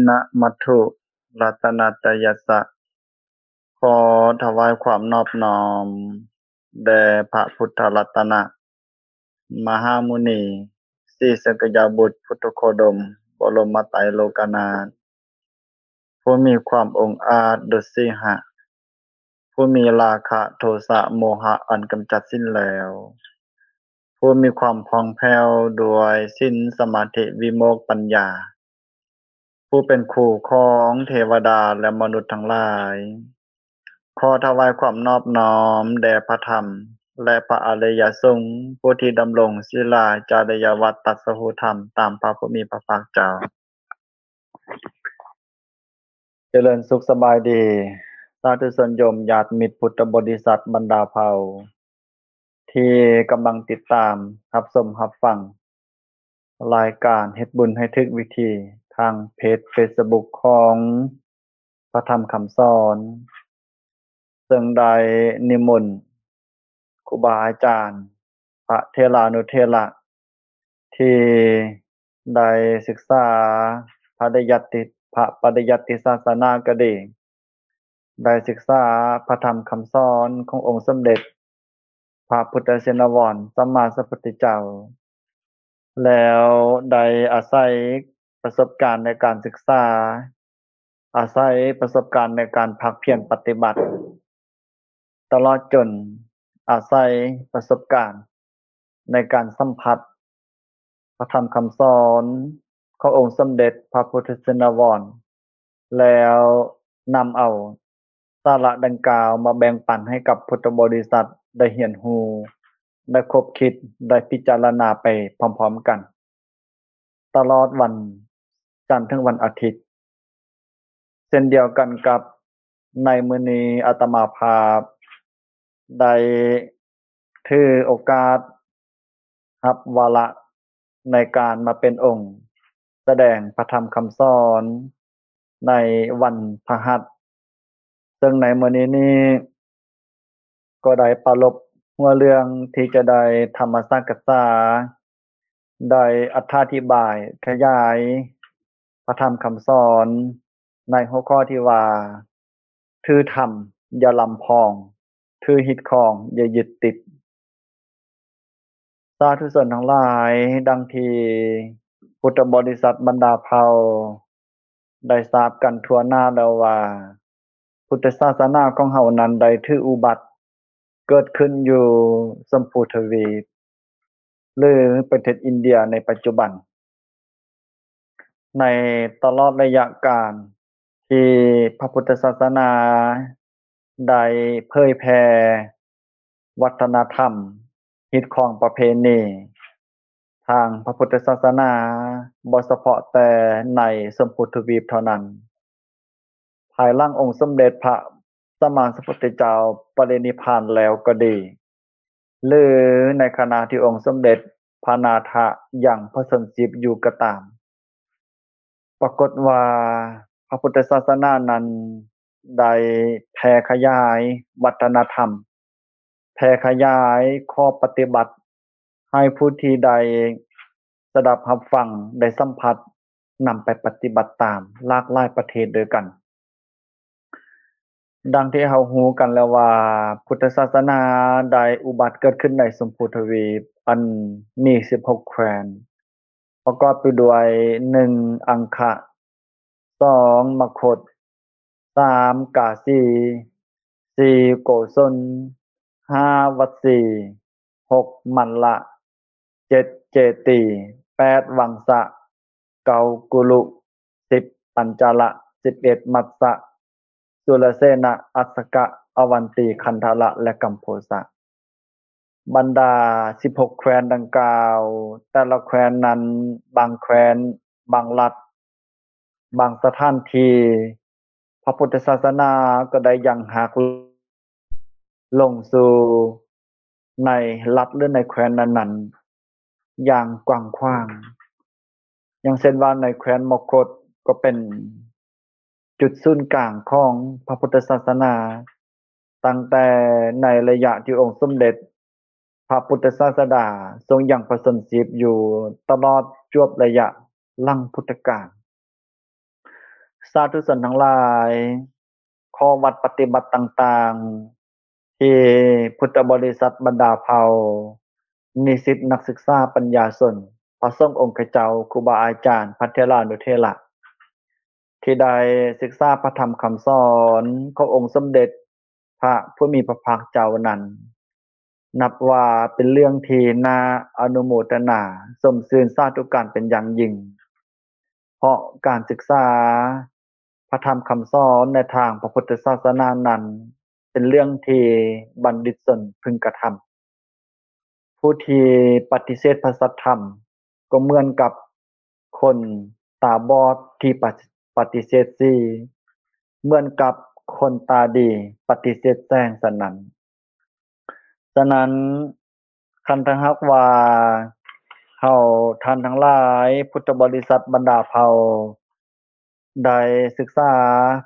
ນະມັດຖຸລັດຕະນະຕະຍັດສະ ຂໍຖວາຍຄວາມນອບນ້ອມແດ່ພະພຸດທະລັດຕະນະ ມະຫາມຸນີ ສີສັກກະຍະບຸດ ພຸດໂທໂຄດົມ ບໍລົມມະໄຕໂລກະນາດ ຜູ້ມີຄວາມອົງອາດດຸດສິຫະ ຜູ້ມີລາຄະໂທສະໂມຫະອັນກຳຈັດສິ້ນແລ້ວ ຜູ້ມີຄວາມຜ່ອງແຜ້ວດ້ວຍສິນສະມາທິວິໂມກປັນຍາ ຜູ້ເປັນຄູ່ຂອງເທວະດາ ແລະ ມະນຸດທັງຫຼາຍ ຂໍຖວາຍຄວາມນອບນ້ອມແດ່ພະທຳ ແລະ ພະອະລິຍະສົງ ຜູ້ທີ່ດຳລົງສີລາຈະລິຍະວັດຕັດສະຮູ້ທຳຕາມພະຜູ້ມີພະພາກເຈົ້າ. ຈະເລີນສຸກສະບາຍດີ ສາທຸຊົນໂຍມຍາດມິດພຸດທະບໍລິສັດບັນດາເຜົ່າ ທີ່ກຳລັງຕິດຕາມ ຮັບຊົມ ຮັບຟັງ ລາຍການເຮັດບຸນໃຫ້ຖືກວິທີ ທາງເພຈເຟສບຸກຂອງພະທຳຄຳສອນ ເຊິ່ງໄດ້ນິມົນຄູບາອາຈານ ພະເຖລານຸເຖລະ ທີ່ໄດ້ສຶກສາພະລິຍັດຕິ ພະປະລິຍັດຕິສາສະໜາກໍດີ, ໄດ້ສຶກສາພະທຳຄຳສອນຂອງອົງສົມເດັດພະພຸດທະຊິນນະວອນ ສຳມາສຳພຸດທະເຈົ້າ ແລ້ວໄດ້ອາໄສປະສົບການໃນການສຶກສາ, ອາໄສປະສົບການໃນການພາກພຽນປະຕິບັດ, ຕະຫຼອດຈົນອາໄສປະສົບການໃນການສຳຜັດພະທຳຄຳສອນຂອງອົງສົມເດັດພະພຸດທະຊິນນະວອນ ແລ້ວນຳເອົາສາລະດັ່ງກ່າວມາແບ່ງປັນໃຫ້ກັບພຸດທະບໍລິສັດໄດ້ຮຽນຮູ້, ໄດ້ຄົບຄິດ, ໄດ້ພິຈາລະນາໄປພ້ອມໆກັນ ຕະຫຼອດວັນຈັນເຖິງວັນອາທິດ. ເຊັ່ນດຽວກັນກັບໃນມື້ນີ້ ອາດຕະມາພາບໄດ້ຖືໂອກາດຮັບວາລະໃນການມາເປັນອົງສະແດງພະທຳຄຳສອນໃນວັນພະຫັດ, ເຊິ່ງໃນມື້ນີ້ນີ້ ກໍໄດ້ປາລົບຫົວເລື່ອງທີ່ຈະໄດ້ທຳມະສັກກະສາ, ໄດ້ອະຖາທິບາຍຂະຫຍາຍພະທຳຄຳສອນໃນຫົວຂໍ້ທີ່ວ່າ ຖືທຳຢ່າລຳພອງ, ຖືຮີດຄອງຢ່າຍຶດຕິດ. ສາທຸຊົນທັງຫຼາຍ, ດັ່ງທີ່ພຸດທະບໍລິສັດບັນດາເຜົ່າໄດ້ຊາບກັນທົ່ວໜ້າແລ້ວວ່າ ພຸດທະສາສະໜາຂອງເຮົານັ້ນໄດ້ຖືອຸບັດເກີດຂຶ້ນຢູ່ຊົມພູທະວີບ ຫຼື ປະເທດອິນເດຍໃນປັດຈຸບັນ. ໃນຕະຫຼອດໄລຍະການທີ່ພະພຸດທະສາສະໜາໄດ້ເຜີຍແຜ່ວັດທະນະທຳ, ຮີດຄອງປະເພນີທາງພະພຸດທະສາສະໜາ, ບໍ່ສະເພາະແຕ່ໃນຊົມພູທະວີບເທົ່ານັ້ນ, ພາຍຫຼັງອົງສົມເດັດພະສຳມາສຳພຸດທະເຈົ້າປະລິນິບພານແລ້ວກໍດີ ຫຼື ໃນຂະນະທີ່ອົງສົມເດັດພະນາຖະຍັງພະຊົນຊີບຢູ່ກໍຕາມ, ປາກົດວ່າພະພຸດທະສາສະໜານັ້ນໄດ້ແຜ່ຂະຫຍາຍວັດທະນະທຳ, ແຜ່ຂະຫຍາຍຂໍ້ປະຕິບັດໃຫ້ຜູ້ທີ່ໄດ້ສະດັບຮັບຟັງ, ໄດ້ສຳຜັດ, ນຳໄປປະຕິບັດຕາມຫຼາກຫຼາຍປະເທດດ້ວຍກັນ. ດັ່ງທີ່ເຮົາຮູ້ກັນແລ້ວວ່າ ພຸດທະສາສະໜາໄດ້ອຸບັດເກີດຂຶ້ນໃນຊົມພູທະວີບ ອັນມີສິບຫົກແຄວ້ນ ປະກອບໄປດ້ວຍ ໜຶ່ງ ອັງຄະ, ສອງ ມະຄົດ, ສາມ ກາສີ, ສີ່ ໂກສົນ, ຫ້າ ວັດສີ, ຫົກ ມັນລະ, ເຈັດ ເຈຕີ, ແປດ ວັງສະ, ເກົ້າ ກຸລຸ, ສິບ ປັນຈາລະ, ສິບເອັດ ມັດສະ, ສຸລະເສນະ, ອັດສະກະ, ອະວັນຕີ, ຄັນທະລະ ແລະ ກຳໂພສະ. ບັນດາສິບຫົກແຄວ້ນດັ່ງກ່າວ, ແຕ່ລະແຄວ້ນນັ້ນ, ບາງແຄວ້ນ, ບາງລັດ, ບາງສະຖານທີ່, ພະພຸດທະສາສະໜາກໍໄດ້ຍັງຮາກລົງສູ່ໃນລັດ ຫຼື ໃນແຄວ້ນນັ້ນໆ ຢ່າງກວ້າງຂວາງ. ຢ່າງເຊັ່ນວ່າໃນແຄວ້ນມະຄົດກໍເປັນຈຸດສູນກາງຂອງພະພຸດທະສາສະໜາ, ຕັ້ງແຕ່ໃນໄລຍະທີ່ອົງສົມເດັດພະພຸດທະສາສະດາຊົງຍັງພະຊົນຊີບຢູ່ ຕະຫຼອດຈວບໄລຍະຫຼັງພຸດທະການ. ສາທຸຊົນທັງຫຼາຍ, ຂໍ້ວັດປະຕິບັດຕ່າງໆ ທີ່ພຸດທະບໍລິສັດບັນດາເຜົ່າ, ນິສິດນັກສຶກສາ, ປັນຍາຊົນ, ພະສົງອົງຄະເຈົ້າ, ຄູບາອາຈານ, ພະເຖລານຸເຖລະ ທີ່ໄດ້ສຶກສາພະທຳຄຳສອນຂອງອົງສົມເດັດພະຜູ້ມີພະພາກເຈົ້ານັ້ນ, ນັບວ່າເປັນເລື່ອງທີ່ໜ້າອະນຸໂມທະນາຊົມຊື່ນສາທຸການເປັນຢ່າງຍິ່ງ, ເພາະການສຶກສາພະທຳຄຳສອນໃນທາງພະພຸດທະສາສະໜານັ້ນ ເປັນເລື່ອງທີ່ບັນດິດຊົນເພິ່ງກະທຳ. ຜູ້ທີ່ປະຕິເສດພະສັດທຳ ກໍເໝືອນກັບຄົນຕາບອດທີ່ປະ ປະຕິເສດສີ, ເໝືອນກັບຄົນຕາດີປະຕິເສດແສງສະນັ້ນ. ສະນັ້ນ, ຄັນຖ້າຫາກວ່າເຮົາທ່ານທັງຫຼາຍ, ພຸດທະບໍລິສັດບັນດາເຜົ່າ ໄດ້ສຶກສາ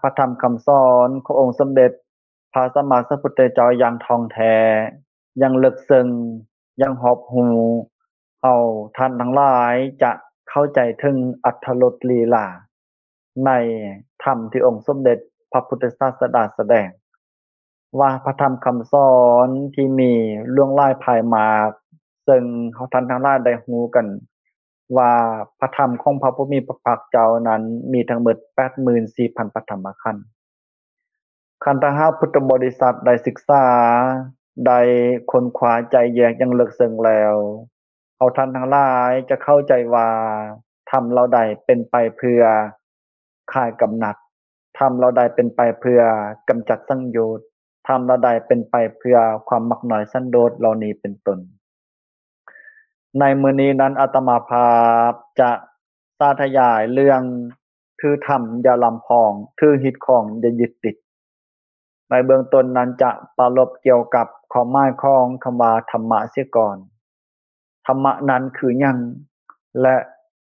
ພະທຳຄຳສອນຂອງອົງສົມເດັດພະສຳມາສຳພຸດທະເຈົ້າຢ່າງທ່ອງແທ້, ຢ່າງເລິກເຊິ່ງ, ຢ່າງຮອບຮູ້, ເຮົາທ່ານທັງຫຼາຍຈະເຂົ້າໃຈເຖິງອັດຖະລົດລີລາໃນທຳທີ່ອົງສົມເດັດພະພຸດທະສາສະດາສະແດງ ວ່າພະທຳຄຳສອນທີ່ມີຫຼວງຫຼາຍພາຍມາກ, ເຊິ່ງເຮົາທ່ານທັງຫຼາຍໄດ້ຮູ້ກັນວ່າ ພະທຳຂອງພະຜູ້ມີພະພາກເຈົ້ານັ້ນມີທັງໝົດແປດໝື່ນສີ່ພັນພະທຳມະຂັນ. ຄັນຖ້າຫາກພຸດທະບໍລິສັດໄດ້ສຶກສາ, ໄດ້ຄົ້ນຄວ້າໄຈ້ແຍກຢ່າງເລິກເຊິ່ງແລ້ວ, ເຮົາທ່ານທັງຫຼາຍຈະເຂົ້າໃຈວ່າ ທຳເຫຼົ່າໃດເປັນໄປເພື່ອຄາຍກຳໜັດ, ທຳເຫຼົ່າໃດເປັນໄປເພື່ອກຳຈັດສັງໂຍດ, ທຳເຫຼົ່າໃດເປັນໄປເພື່ອຄວາມມັກນ້ອຍສັນໂດດເຫຼົ່ານີ້ເປັນຕົ້ນ. ໃນມື້ນີ້ນັ້ນ ອາດຕະມາພາບຈະສາທະຍາຍເລື່ອງ ຖືທຳຢ່າລຳພອງ, ຖືຮີດຄອງຢ່າຍຶດຕິດ. ໃນເບື້ອງຕົ້ນນັ້ນຈະປາລົບກ່ຽວກັບຄວາມໝາຍຂອງຄຳວ່າທຳມະເສຍກ່ອນ. ທຳມະນັ້ນຄືຫຍັງ ແລະ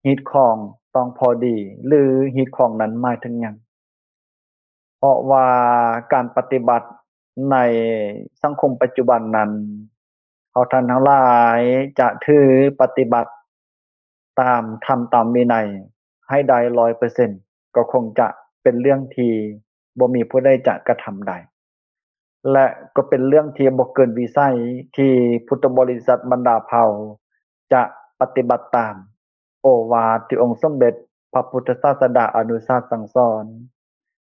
ຮີດຄອງຕ້ອງພໍດີ ຫຼື ຮີດຄອງນັ້ນໝາຍເຖິງຫຍັງ? ເພາະວ່າການປະຕິບັດໃນສັງຄົມປັດຈຸບັນນັ້ນ, ເຮົາທ່ານທັງຫຼາຍຈະຖືປະຕິບັດຕາມທຳຕາມວິໄນໃຫ້ໄດ້ຮ້ອຍເປີເຊັນ ກໍຄົງຈະເປັນເລື່ອງທີ່ບໍ່ມີຜູ້ໃດຈະກະທຳໄດ້ ແລະ ກໍເປັນເລື່ອງທີ່ບໍ່ເກີນວິໄສທີ່ພຸດທະບໍລິສັດບັນດາເຜົ່າຈະປະຕິບັດຕາມໂອວາດທີ່ອົງສົມເດັດພະພຸດທະສາສະດາອະນຸສາດສັ່ງສອນ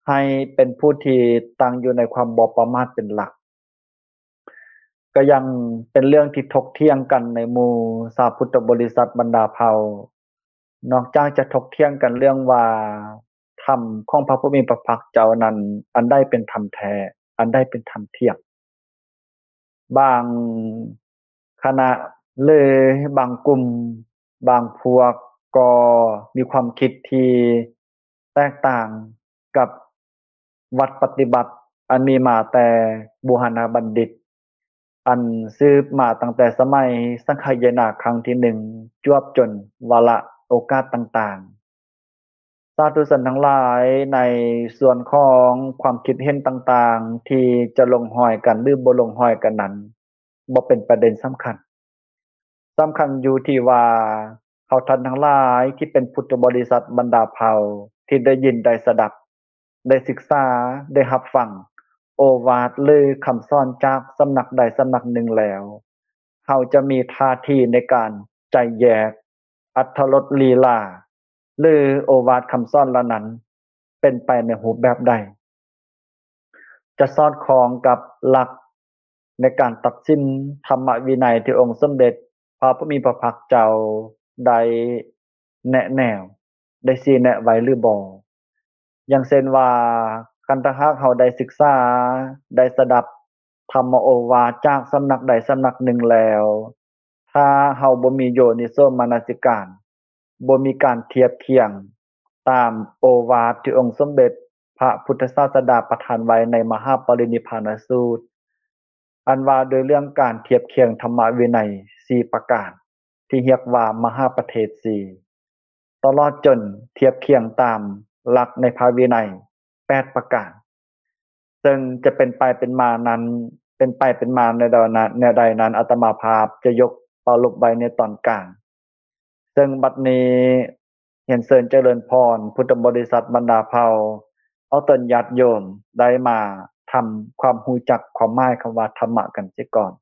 ໃຫ້ເປັນຜູ້ທີ່ຕັ້ງຢູ່ໃນຄວາມບໍ່ປະໝາດເປັນຫຼັກ. ກໍຍັງເປັນເລື່ອງທີ່ຖົກຖຽງກັນໃນໝູ່ຊາວພຸດທະບໍລິສັດບັນດາເຜົ່າ, ນອກຈາກຈະຖົກຖຽງກັນເລື່ອງວ່າທຳຂອງພະຜູ້ມີພະພາກເຈົ້ານັ້ນ ອັນໃດເປັນທຳແທ້, ອັນໃດເປັນທຳທຽບ, ບາງຄະນະ ຫຼື ບາງກຸ່ມ, ບາງພວກກໍມີຄວາມຄິດທີ່ແຕກຕ່າງກັບວັດປະຕິບັດອັນມີມາແຕ່ບູຮານະບັນດິດ ອັນສືບມາຕັ້ງແຕ່ສະໄໝສັງຄະຍານາຄັ້ງທີໜຶ່ງ ຈວບຈົນວາລະໂອກາດຕ່າງໆ. ສາທຸຊົນທັງຫຼາຍ, ໃນສ່ວນຂອງຄວາມຄິດເຫັນຕ່າງໆ ທີ່ຈະລົງຮອຍກັນ ຫຼື ບໍ່ລົງຮອຍກັນນັ້ນ ບໍ່ເປັນປະເດັນສຳຄັນ. ສຳຄັນຢູ່ທີ່ວ່າ ເຮົາທ່ານທັງຫຼາຍທີ່ເປັນພຸດທະບໍລິສັດບັນດາເຜົ່າ ທີ່ໄດ້ຍິນໄດ້ສະດັບ, ໄດ້ສຶກສາ, ໄດ້ຮັບຟັງໂອວາດ ຫຼື ຄຳສອນຈາກສຳນັກໃດສຳນັກໜຶ່ງແລ້ວ, ເຮົາຈະມີທ່າທີໃນການໄຈ້ແຍກອັດຖະລົດລີລາ ຫຼື ໂອວາດຄຳສອນເຫຼົ່ານັ້ນ ເປັນໄປໃນຮູບແບບໃດ? ຈະສອດຄ່ອງກັບຫຼັກໃນການຕັດສິນທຳມະວິໄນທີ່ອົງສົມເດັດພະຜູ້ມີພະພາກເຈົ້າໄດ້ແນະແນວ, ໄດ້ຊີ້ແນະໄວ້ຫຼືບໍ່? ຢ່າງເຊັ່ນວ່າ, ຄັນຖ້າຫາກເຮົາໄດ້ສຶກສາ, ໄດ້ສະດັບທຳມະໂອວາດຈາກສຳນັກໃດສຳນັກໜຶ່ງແລ້ວ, ຖ້າເຮົາບໍ່ມີໂຍນິໂສມະນະສິການ, ບໍ່ມີການທຽບຄຽງຕາມໂອວາດທີ່ອົງສົມເດັດພະພຸດທະສາສະດາປະທານໄວ້ໃນມະຫາປະລິນິບພານະສູດ, ອັນວ່າດ້ວຍເລື່ອງການທຽບຄຽງທຳມະວິໄນສີ່ປະການ ທີ່ຮຽກວ່າມະຫາປະເທດສີ່, ຕະຫຼອດຈົນທຽບຄຽງຕາມຫຼັກໃນພະວິໄນແປດປະການ. ເຊິ່ງຈະເປັນໄປເປັນມານັ້ນ, ເປັນໄປເປັນມາແນວໃດນັ້ນ, ອາດຕະມາພາບຈະຍົກປາລົບໄວ້ໃນຕອນກາງ. ເຊິ່ງບັດນີ້ ຽນເຊີນຈະເລີນພອນ ພຸດທະບໍລິສັດບັນດາເຜົ່າ ຂໍເຊີນຍາດໂຍມໄດ້ມາທຳຄວາມຮູ້ຈັກຄວາມໝາຍຄຳວ່າທຳມະກັນເສຍກ່ອນ.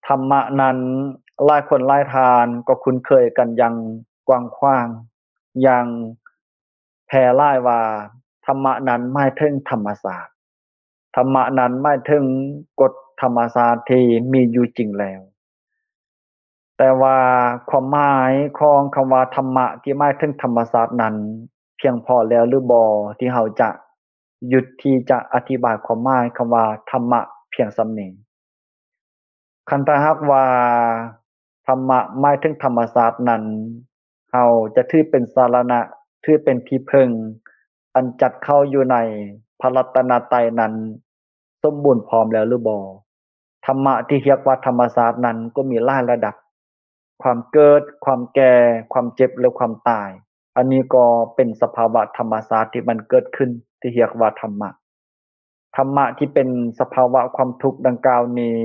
ທຳມະນັ້ນ ຫຼາຍຄົນຫຼາຍທ່ານກໍຄຸ້ນເຄີຍກັນຢ່າງກວ້າງຂວາງ, ຢ່າງແຜ່ຫຼາຍວ່າ ທຳມະນັ້ນໝາຍເຖິງທຳມະຊາດ. ທຳມະນັ້ນໝາຍເຖິງກົດທຳມະຊາດທີ່ມີຢູ່ຈິງແລ້ວ. ແຕ່ວ່າຄວາມໝາຍຂອງຄຳວ່າທຳມະທີ່ໝາຍເຖິງທຳມະຊາດນັ້ນ ພຽງພໍແລ້ວຫຼືບໍ່ ທີ່ເຮົາຈະຢຸດທີ່ຈະອະທິບາຍຄວາມໝາຍຄຳວ່າທຳມະພຽງສ່ຳນີ້? ຄັນຖ້າຫາກວ່າທຳມະໝາຍເຖິງທຳມະຊາດນັ້ນ ເຮົາຈະຖືເປັນສາລະນະ, ຖືເປັນທີ່ເພິ່ງ ອັນຈັດເຂົ້າຢູ່ໃນພະລັດຕະນະໄຕນັ້ນສົມບູນພ້ອມແລ້ວຫຼືບໍ່? ທຳມະທີ່ຮຽກວ່າທຳມະຊາດນັ້ນກໍມີຫຼາຍລະດັບ, ຄວາມເກີດ, ຄວາມແກ່, ຄວາມເຈັບ ແລະ ຄວາມຕາຍ. ອັນນີ້ກໍເປັນສະພາວະທຳມະຊາດທີ່ມັນເກີດຂຶ້ນ ທີ່ຮຽກວ່າທຳມະ. ທຳມະທີ່ເປັນສະພາວະຄວາມທຸກດັ່ງກ່າວນີ້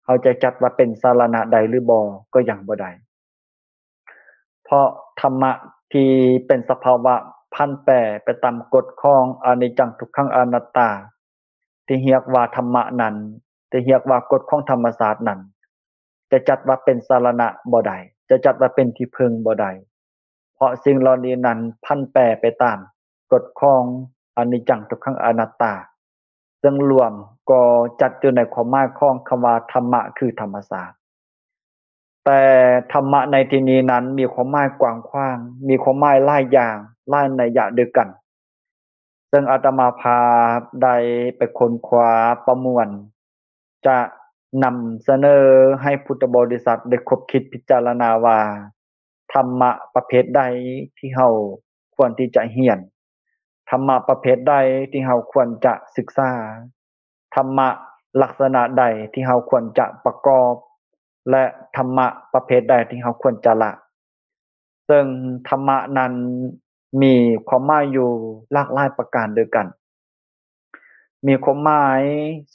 ເຮົາຈະຈັດວ່າເປັນສາລະນະໄດ້ຫຼືບໍ່ ກໍຍັງບໍ່ໄດ້. ເພາະທຳມະທີ່ເປັນສະພາວະຜັນແປໄປຕາມກົດຂອງອະນິດຈັງ ທຸກຂັງ ອະນັດຕາ ທີ່ຮຽກວ່າທຳມະນັ້ນ, ທີ່ຮຽກວ່າກົດຂອງທຳມະຊາດນັ້ນ ຈະຈັດວ່າເປັນສາລະນະບໍ່ໄດ້, ຈະຈັດວ່າເປັນທີ່ເພິ່ງບໍ່ໄດ້. ເພາະສິ່ງເຫຼົ່ານີ້ນັ້ນຜັນແປໄປຕາມກົດຂອງອະນິດຈັງ ທຸກຂັງ ອະນັດຕາ, ເຊິ່ງລວມກໍຈັດຢູ່ໃນຄວາມໝາຍຂອງຄຳວ່າທຳມະ ຄືທຳມະຊາດ. ແຕ່ທຳມະໃນທີ່ນີ້ນັ້ນມີຄວາມໝາຍກວ້າງຂວາງ, ມີຄວາມໝາຍຫຼາຍຢ່າງ, ຫຼາຍໄນຍະດ້ວຍກັນ. ເຊິ່ງອາດຕະມາພາບໄດ້ໄປຄົ້ນຄວ້າປະມວນ ຈະນຳສະເໜີໃຫ້ພຸດທະບໍລິສັດໄດ້ຄົບຄິດພິຈາລະນາວ່າ ທຳມະປະເພດໃດທີ່ເຮົາຄວນທີ່ຈະຮຽນ, ທຳມະປະເພດໃດທີ່ເຮົາຄວນຈະສຶກສາ, ທຳມະລັກສະນະໃດທີ່ເຮົາຄວນຈະປະກອບ ແລະ ທຳມະປະເພດໃດທີ່ເຮົາຄວນຈະລະ. ເຊິ່ງທຳມະນັ້ນມີຄວາມໝາຍຢູ່ຫຼາກຫຼາຍປະການດ້ວຍກັນ. ມີຄວາມໝາຍ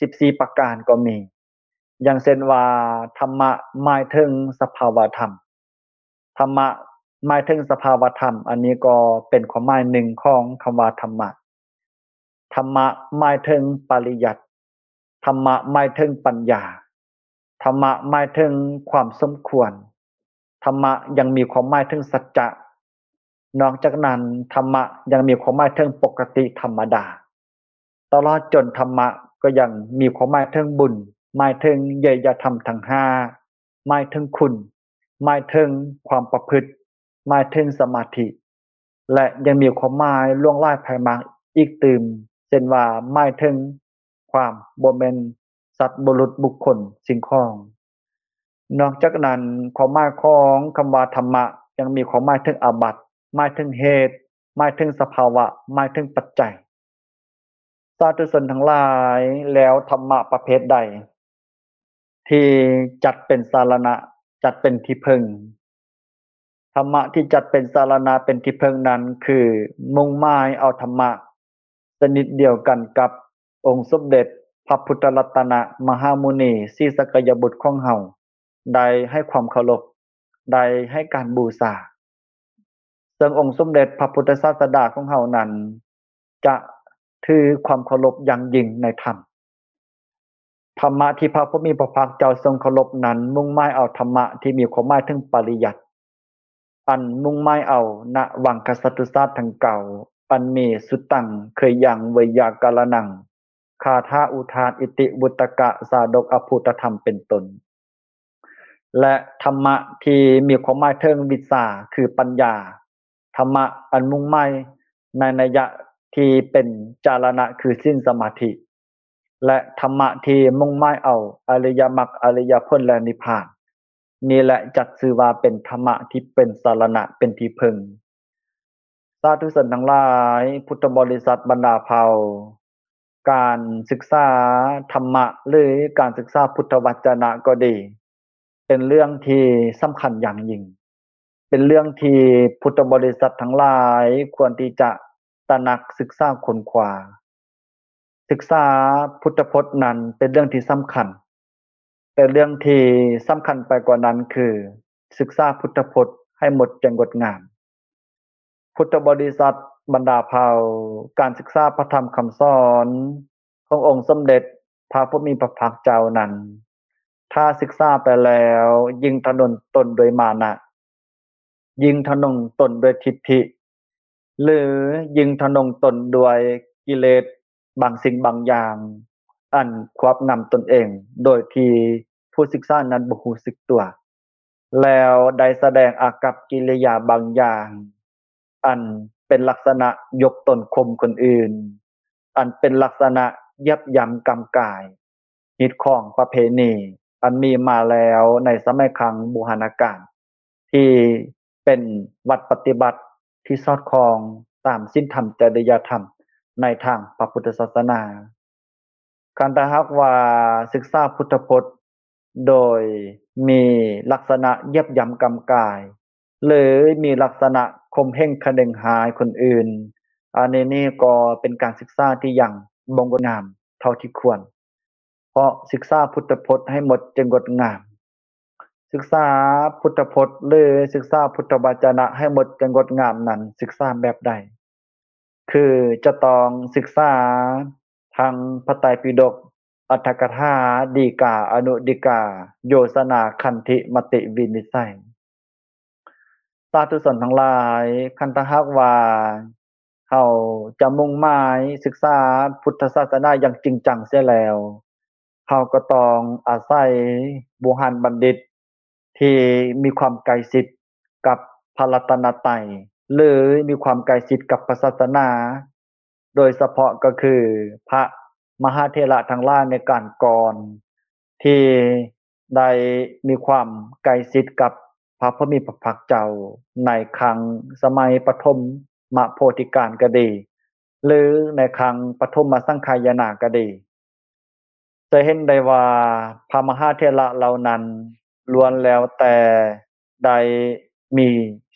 ສິບສີ່ປະການກໍມີ. ຢ່າງເຊັ່ນວ່າ ທຳມະໝາຍເຖິງສະພາວະທຳ. ທຳມະໝາຍເຖິງສະພາວະທຳ, ອັນນີ້ກໍເປັນຄວາມໝາຍໜຶ່ງຂອງຄຳວ່າທຳມະ. ທຳມະໝາຍເຖິງປະລິຍັດ. ທຳມະໝາຍເຖິງປັນຍາ. ທຳມະໝາຍເຖິງຄວາມສົມຄວນ. ທຳມະຍັງມີຄວາມໝາຍເຖິງສັດຈະ. ນອກຈາກນັ້ນ, ທຳມະຍັງມີຄວາມໝາຍເຖິງປົກກະຕິທຳມະດາ. ຕະຫຼອດຈົນທຳມະກໍຍັງມີຄວາມໝາຍເຖິງບຸນ, ໝາຍເຖິງເຍຍຍະທຳທັງຫ້າ, ໝາຍເຖິງຄຸນ, ໝາຍເຖິງຄວາມປະພຶດ, ໝາຍເຖິງສະມາທິ ແລະ ຍັງມີຄວາມໝາຍຫຼວງຫຼາຍໄພມາກອີກຕື່ມ, ເຊັ່ນວ່າ ໝາຍເຖິງຄວາມບໍ່ແມ່ນສັດບຸລຸດບຸກຄົນສິ່ງຂອງ. ນອກຈາກນັ້ນ, ຄວາມໝາຍຂອງຄຳວ່າທຳມະຍັງມີຄວາມໝາຍເຖິງອາບັດ, ໝາຍເຖິງເຫດ, ໝາຍເຖິງສະພາວະ, ໝາຍເຖິງປັດໄຈ. ສາທຸຊົນທັງຫຼາຍ, ແລ້ວທຳມະປະເພດໃດທີ່ຈັດເປັນສາລະນະ, ຈັດເປັນທີ່ເພິ່ງ? ທຳມະທີ່ຈັດເປັນສາລະນະ ເປັນທີ່ເພິ່ງນັ້ນ ຄືມຸ່ງໝາຍເອົາທຳມະຊະນິດດຽວກັນກັບອົງສົມເດັດພະພຸດທະລັດຕະນະມະຫາມຸນີສີສັກກະຍະບຸດຂອງເຮົາ ໄດ້ໃຫ້ຄວາມເຄົາລົບ, ໄດ້ໃຫ້ການບູຊາ. ເຊິ່ງອົງສົມເດັດພະພຸດທະສາສະດາຂອງເຮົານັ້ນ ຈະຖືຄວາມເຄົາລົບຢ່າງຍິ່ງໃນທຳ. ທຳມະທີ່ພະຜູ້ມີພະພາກເຈົ້າຊົງເຄົາລົບນັ້ນ ມຸ່ງໝາຍເອົາທຳມະທີ່ມີຄວາມໝາຍເຖິງປະລິຍັດ, ອັນມຸ່ງໝາຍເອົານະວັງຄະສັດຕຸສາດທັງເກົ້າ ອັນມີສຸຕັງ ເຄີຍຍັງ ໄວຍາກະລະນັງ ຄາຖາອຸທານ ອິຕິ ວຸດຕະກະ ຊາດົກ ອະພູດທະທຳ ເປັນຕົ້ນ. ແລະ ທຳມະທີ່ມີຄວາມໝາຍເຖິງວິຊາ ຄືປັນຍາ, ທຳມະອັນມຸ່ງໝາຍໃນໄນຍະທີ່ເປັນຈາລະນະ ຄືສິນສະມາທິ ແລະ ທຳມະທີ່ມຸ່ງໝາຍເອົາອະລິຍະມັກ ອະລິຍະຜົນ ແລະ ນິບພານ. ນີ້ແຫຼະຈັດຊື່ວ່າເປັນທຳມະທີ່ເປັນສາລະນະ ເປັນທີ່ເພິ່ງ. ສາທຸຊົນທັງຫຼາຍ, ພຸດທະບໍລິສັດບັນດາເຜົ່າ, ການສຶກສາທຳມະ ຫຼື ການສຶກສາພຸດທະວັດຈະນະກໍດີ ເປັນເລື່ອງທີ່ສຳຄັນຢ່າງຍິ່ງ, ເປັນເລື່ອງທີ່ພຸດທະບໍລິສັດທັງຫຼາຍຄວນທີ່ຈະຕະໜັກ, ສຶກສາ, ຄົ້ນຄວ້າ. ສຶກສາພຸດທະພົດນັ້ນເປັນເລື່ອງທີ່ສຳຄັນ, ແຕ່ເລື່ອງທີ່ສຳຄັນໄປກວ່ານັ້ນຄື ສຶກສາພຸດທະພົດໃຫ້ໝົດໃຈງົດງາມ. ພຸດທະບໍລິສັດບັນດາເຜົ່າ, ການສຶກສາພະທຳຄຳສອນຂອງອົງສົມເດັດພະຜູ້ມີພະພາກເຈົ້ານັ້ນ, ຖ້າສຶກສາໄປແລ້ວ ຍິ່ງທະນົງຕົນດ້ວຍມານະ, ຍິ່ງທະນົງຕົນດ້ວຍທິດຖິ ຫຼື ຍິ່ງທະນົງຕົນດ້ວຍກິເລດບາງສິ່ງບາງຢ່າງ ອັນຄວບງຳຕົນເອງໂດຍທີ່ຜູ້ສຶກສານັ້ນບໍ່ຮູ້ສຶກຕົວ, ແລ້ວໄດ້ສະແດງອາກັບກິລິຍາບາງຢ່າງ ອັນເປັນລັກສະນະຍົກຕົນຂົ່ມຄົນອື່ນ, ອັນເປັນລັກສະນະຢຽບຢຳກຳກາຍ ຮີດຄອງປະເພນີ ອັນມີມາແລ້ວໃນສະໄໝຄັ້ງບູຮານະການ ທີ່ເປັນວັດປະຕິບັດທີ່ສອດຄ່ອງຕາມສິນທຳຈະລິຍະທຳໃນທາງພະພຸດທະສາສະໜາ. ຄັນຖ້າຫາກວ່າສຶກສາພຸດທະພົດໂດຍມີລັກສະນະຢຽບຢຳກຳກາຍ ຫຼື ມີລັກສະນະຂົ່ມເຫັງຄະເໜັງຮ້າຍຄົນອື່ນ, ອັນນີ້ນີ້ກໍເປັນການສຶກສາທີ່ຍັງບໍ່ງົດງາມເທົ່າທີ່ຄວນ. ເພາະສຶກສາພຸດທະພົດໃຫ້ໝົດຈຶ່ງງົດງາມ. ສຶກສາພຸດທະພົດ ຫຼື ສຶກສາພຸດທະວະຈະນະໃຫ້ໝົດຈຶ່ງງົດງາມນັ້ນ ສຶກສາແບບໃດ? ຄືຈະຕ້ອງສຶກສາທັງພະໄຕປິດົກ, ອັດຖະກະຖາ, ດີກາ, ອະນຸດີກາ, ໂຍຊະນາ, ຄັນທິ, ມະຕິວິນິດໄສ. ສາທຸຊົນທັງຫຼາຍ, ຄັນຖ້າຫາກວ່າເຮົາຈະມຸ່ງໝາຍສຶກສາພຸດທະສາສະໜາຢ່າງຈິງຈັງເສຍແລ້ວ, ເຮົາກໍຕ້ອງອາໄສບູຮານບັນດິດທີ່ມີຄວາມໃກ້ຊິດກັບພະລັດຕະນະໄຕ ຫຼື ມີຄວາມໃກ້ຊິດກັບພະສາສະໜາ, ໂດຍສະເພາະກໍຄືພະມະຫາເຖລະທັງຫຼາຍໃນການກ່ອນ ທີ່ໄດ້ມີຄວາມໃກ້ຊິດກັບພະຜູ້ມີພະພາກເຈົ້າໃນຄັ້ງສະໄໝປະຖົມມະໂພທິການກໍດີ ຫຼື ໃນຄັ້ງປະຖົມມະສັງຄາຍະນາກໍດີ, ຈະເຫັນໄດ້ວ່າພະມະຫາເຖລະເຫຼົ່ານັ້ນລ້ວນແລ້ວແຕ່ໄດ້ມີ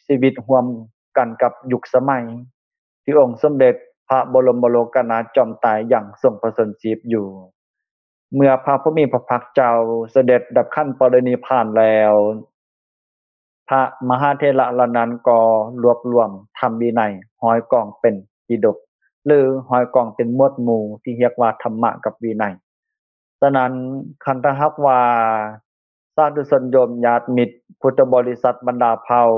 ຊີວິດຮ່ວມກັນກັບຍຸກສະໄໝ ທີ່ອົງສົມເດັດພະບໍລົມໂລກະນາຖຈອມໄຕຍັງຊົງປະຊົນຊີບຢູ່. ເມື່ອພະຜູ້ມີພະພາກເຈົ້າສະເດັດດັບຂັນປະລິນິບພານແລ້ວ, ພະມະຫາເຖລະເຫຼົ່ານັ້ນກໍລວບລວມທຳວິໄນຮ້ອຍກອງເປັນປິດົກ ຫຼື ຮ້ອຍກອງເປັນໝວດໝູ່ທີ່ຮຽກວ່າທຳມະກັບວິໄນ. ສະນັ້ນ, ຄັນຖ້າຫາກວ່າ ສາທຸຊົນໂຍມຍາດມິດ ພຸດທະບໍລິສັດບັນດາເຜົ່າ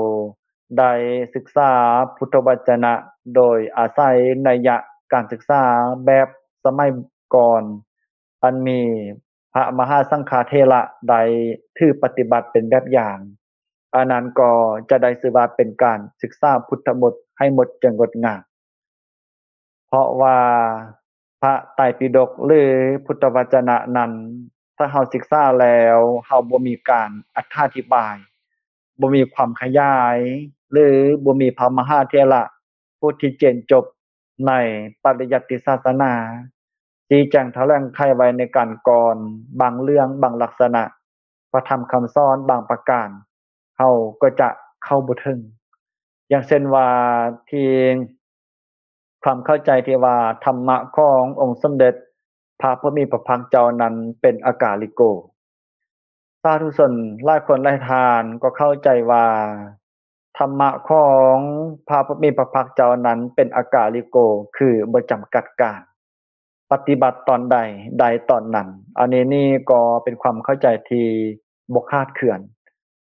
ໄດ້ສຶກສາພຸດທະວະຈະນະໂດຍອາໄສໄນຍະການສຶກສາແບບສະໄໝກ່ອນ ອັນມີພະມະຫາສັງຄາເຖລະໄດ້ຖືປະຕິບັດເປັນແບບຢ່າງ, ອັນນັ້ນກໍຈະໄດ້ຊື່ວ່າເປັນການສຶກສາພຸດທະບົດໃຫ້ໝົດຈຶ່ງງົດງາມ. ເພາະວ່າພະໄຕປິດົກ ຫຼື ພຸດທະວະຈະນະນັ້ນ, ຖ້າເຮົາສຶກສາແລ້ວ ເຮົາບໍ່ມີການອະຖາທິບາຍ, ບໍ່ມີຄວາມຂະຫຍາຍ ຫຼື ບໍ່ມີພະມະຫາເຖລະຜູ້ທີ່ຈຽນຈົບໃນປະລິຍັດຕິສາສະໜາ ຊີ້ແຈງຖະແຫຼງໄຂໄວ້ໃນການກ່ອນ, ບາງເລື່ອງ, ບາງລັກສະນະ, ພະທຳຄຳສອນບາງປະການ ເຮົາກໍຈະເຂົ້າບໍ່ເຖິງ. ຢ່າງເຊັ່ນວ່າ ທີ່ ຄວາມເຂົ້າໃຈທີ່ວ່າທຳມະຂອງອົງສົມເດັດພະຜູ້ມີພະພາກເຈົ້ານັ້ນເປັນອາກາລິໂກ. ສາທຸຊົນຫຼາຍຄົນຫຼາຍທ່ານກໍເຂົ້າໃຈວ່າທຳມະຂອງພະຜູ້ມີພະພາກເຈົ້ານັ້ນເປັນອາກາລິໂກ ຄືບໍ່ຈຳກັດການ, ປະຕິບັດຕອນໃດ ໄດ້ຕອນນັ້ນ. ອັນນີ້ນີ້ກໍເປັນຄວາມເຂົ້າໃຈທີ່ບໍ່ຂາດເຄື່ອນ,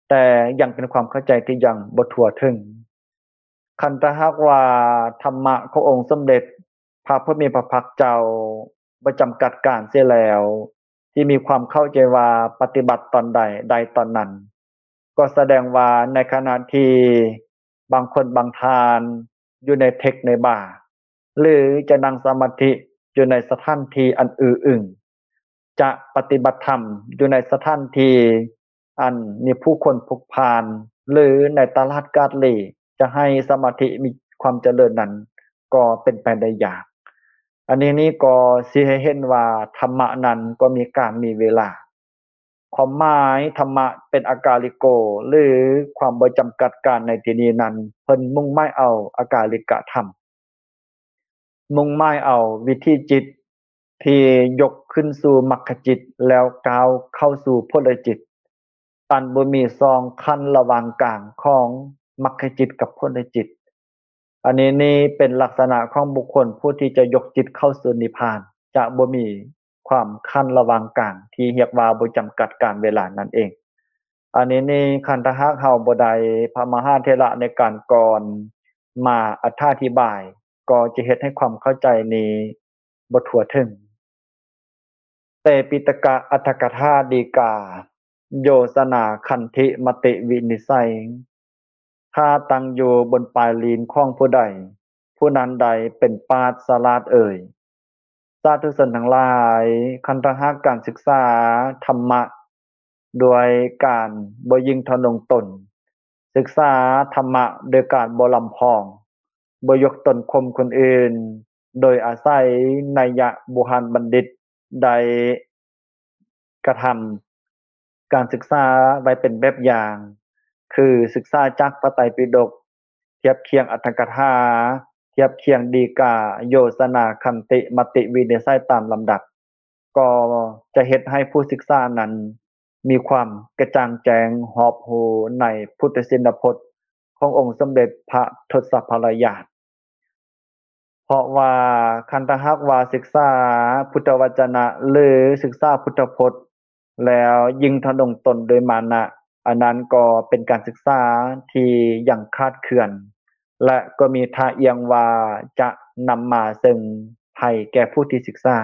ແຕ່ຍັງເປັນຄວາມເຂົ້າໃຈທີ່ຍັງບໍ່ທົ່ວເຖິງ. ຄັນຖ້າຫາກວ່າທຳມະຂອງອົງສົມເດັດພະຜູ້ມີພະພາກເຈົ້າບໍ່ຈຳກັດການເສຍແລ້ວ, ທີ່ມີຄວາມເຂົ້າໃຈວ່າປະຕິບັດຕອນໃດໄດ້ຕອນນັ້ນ, ກໍສະແດງວ່າໃນຂະນະທີ່ບາງຄົນບາງທ່ານຢູ່ໃນເທັກໃນບາ ຫຼື ຈະນັ່ງສະມາທິຢູ່ໃນສະຖານທີ່ອັນອື້ອອຶງ, ຈະປະຕິບັດທຳຢູ່ໃນສະຖານທີ່ອັນມີຜູ້ຄົນຜຸກພານ ຫຼື ໃນຕະຫຼາດກາດຫຼີ, ຈະໃຫ້ສະມາທິມີຄວາມຈະເລີນນັ້ນກໍເປັນໄປໄດ້ຍາກ. ອັນນີ້ນີ້ກໍຊີ້ໃຫ້ເຫັນວ່າທຳມະນັ້ນກໍມີການມີເວລາ. ຄວາມໝາຍທຳມະເປັນອາກາລິໂກ ຫຼື ຄວາມບໍ່ຈຳກັດການໃນທີ່ນີ້ນັ້ນ, ເພິ່ນມຸ່ງໝາຍເອົາອາກາລິກະທຳ, ມຸ່ງໝາຍເອົາວິຖີຈິດທີ່ຍົກຂຶ້ນສູ່ມັກຂະຈິດ ແລ້ວກ້າວເຂົ້າສູ່ຜົນລະຈິດ, ອັນບໍ່ມີຊ່ອງຂັ້ນລະຫວ່າງກາງຂອງມັກຂະຈິດກັບຜົນລະຈິດ. ອັນນີ້ນີ້ເປັນລັກສະນະຂອງບຸກຄົນຜູ້ທີ່ຈະຍົກຈິດເຂົ້າສູ່ນິບພານ ຈະບໍ່ມີຄວາມຂັ້ນລະຫວ່າງກາງ ທີ່ຮຽກວ່າບໍ່ຈຳກັດການເວລານັ້ນເອງ. ອັນນີ້ນີ້ຄັນຖ້າຫາກເຮົາບໍ່ໄດ້ພະມະຫາເຖລະໃນການກ່ອນມາອະຖາທິບາຍ ກໍຈະເຮັດໃຫ້ຄວາມເຂົ້າໃຈນີ້ບໍ່ທົ່ວເຖິງ. ເຕປິຕະກະອັດຖະກະຖາດີກາ ໂຍຊະນາຄັນທິມະຕິວິນິດໄສ ຖ້າຕັ້ງຢູ່ບົນປາຍລີນຂອງຜູ້ໃດ ຜູ້ນັ້ນໃດເປັນປາດສະຫຼາດເອີຍ. ສາທຸຊົນທັງຫຼາຍ, ຄັນຖ້າຫາກການສຶກສາທຳມະໂດຍການບໍ່ຍິ່ງທະນົງຕົນ, ສຶກສາທຳມະໂດຍການບໍ່ລຳພອງ, ບໍ່ຍົກຕົນຂົ່ມຄົນອື່ນ, ໂດຍອາໄສໄນຍະບູຮານບັນດິດໄດ້ກະທຳການສຶກສາໄວ້ເປັນແບບຢ່າງ, ຄືສຶກສາຈາກພະໄຕປິດົກ, ທຽບຄຽງອັດຖະກະຖາ, ທຽບຄຽງດີກາ, ໂຍຊະນາ, ຄັນຕິ, ມະຕິວິນິດໄສຕາມລຳດັບ, ກໍຈະເຮັດໃຫ້ຜູ້ສຶກສານັ້ນມີຄວາມກະຈ່າງແຈ້ງຮອບຮູ້ໃນພຸດທະຊິນນະພົດຂອງອົງສົມເດັດພະທົດສະພະລາຍາດ. ເພາະວ່າຄັນຖ້າຫາກວ່າສຶກສາພຸດທະວະຈະນະ ຫຼື ສຶກສາພຸດທະພົດ ແລ້ວຍິ່ງທະນົງຕົນໂດຍມານະ, ອັນນັ້ນກໍເປັນການສຶກສາທີ່ຍັງຂາດເຂືອນ ແລະ ກໍມີທ່າອ່ຽງວ່າຈະນຳມາເຊິ່ງໄພແກ່ຜູ້ທີ່ສຶກສາ.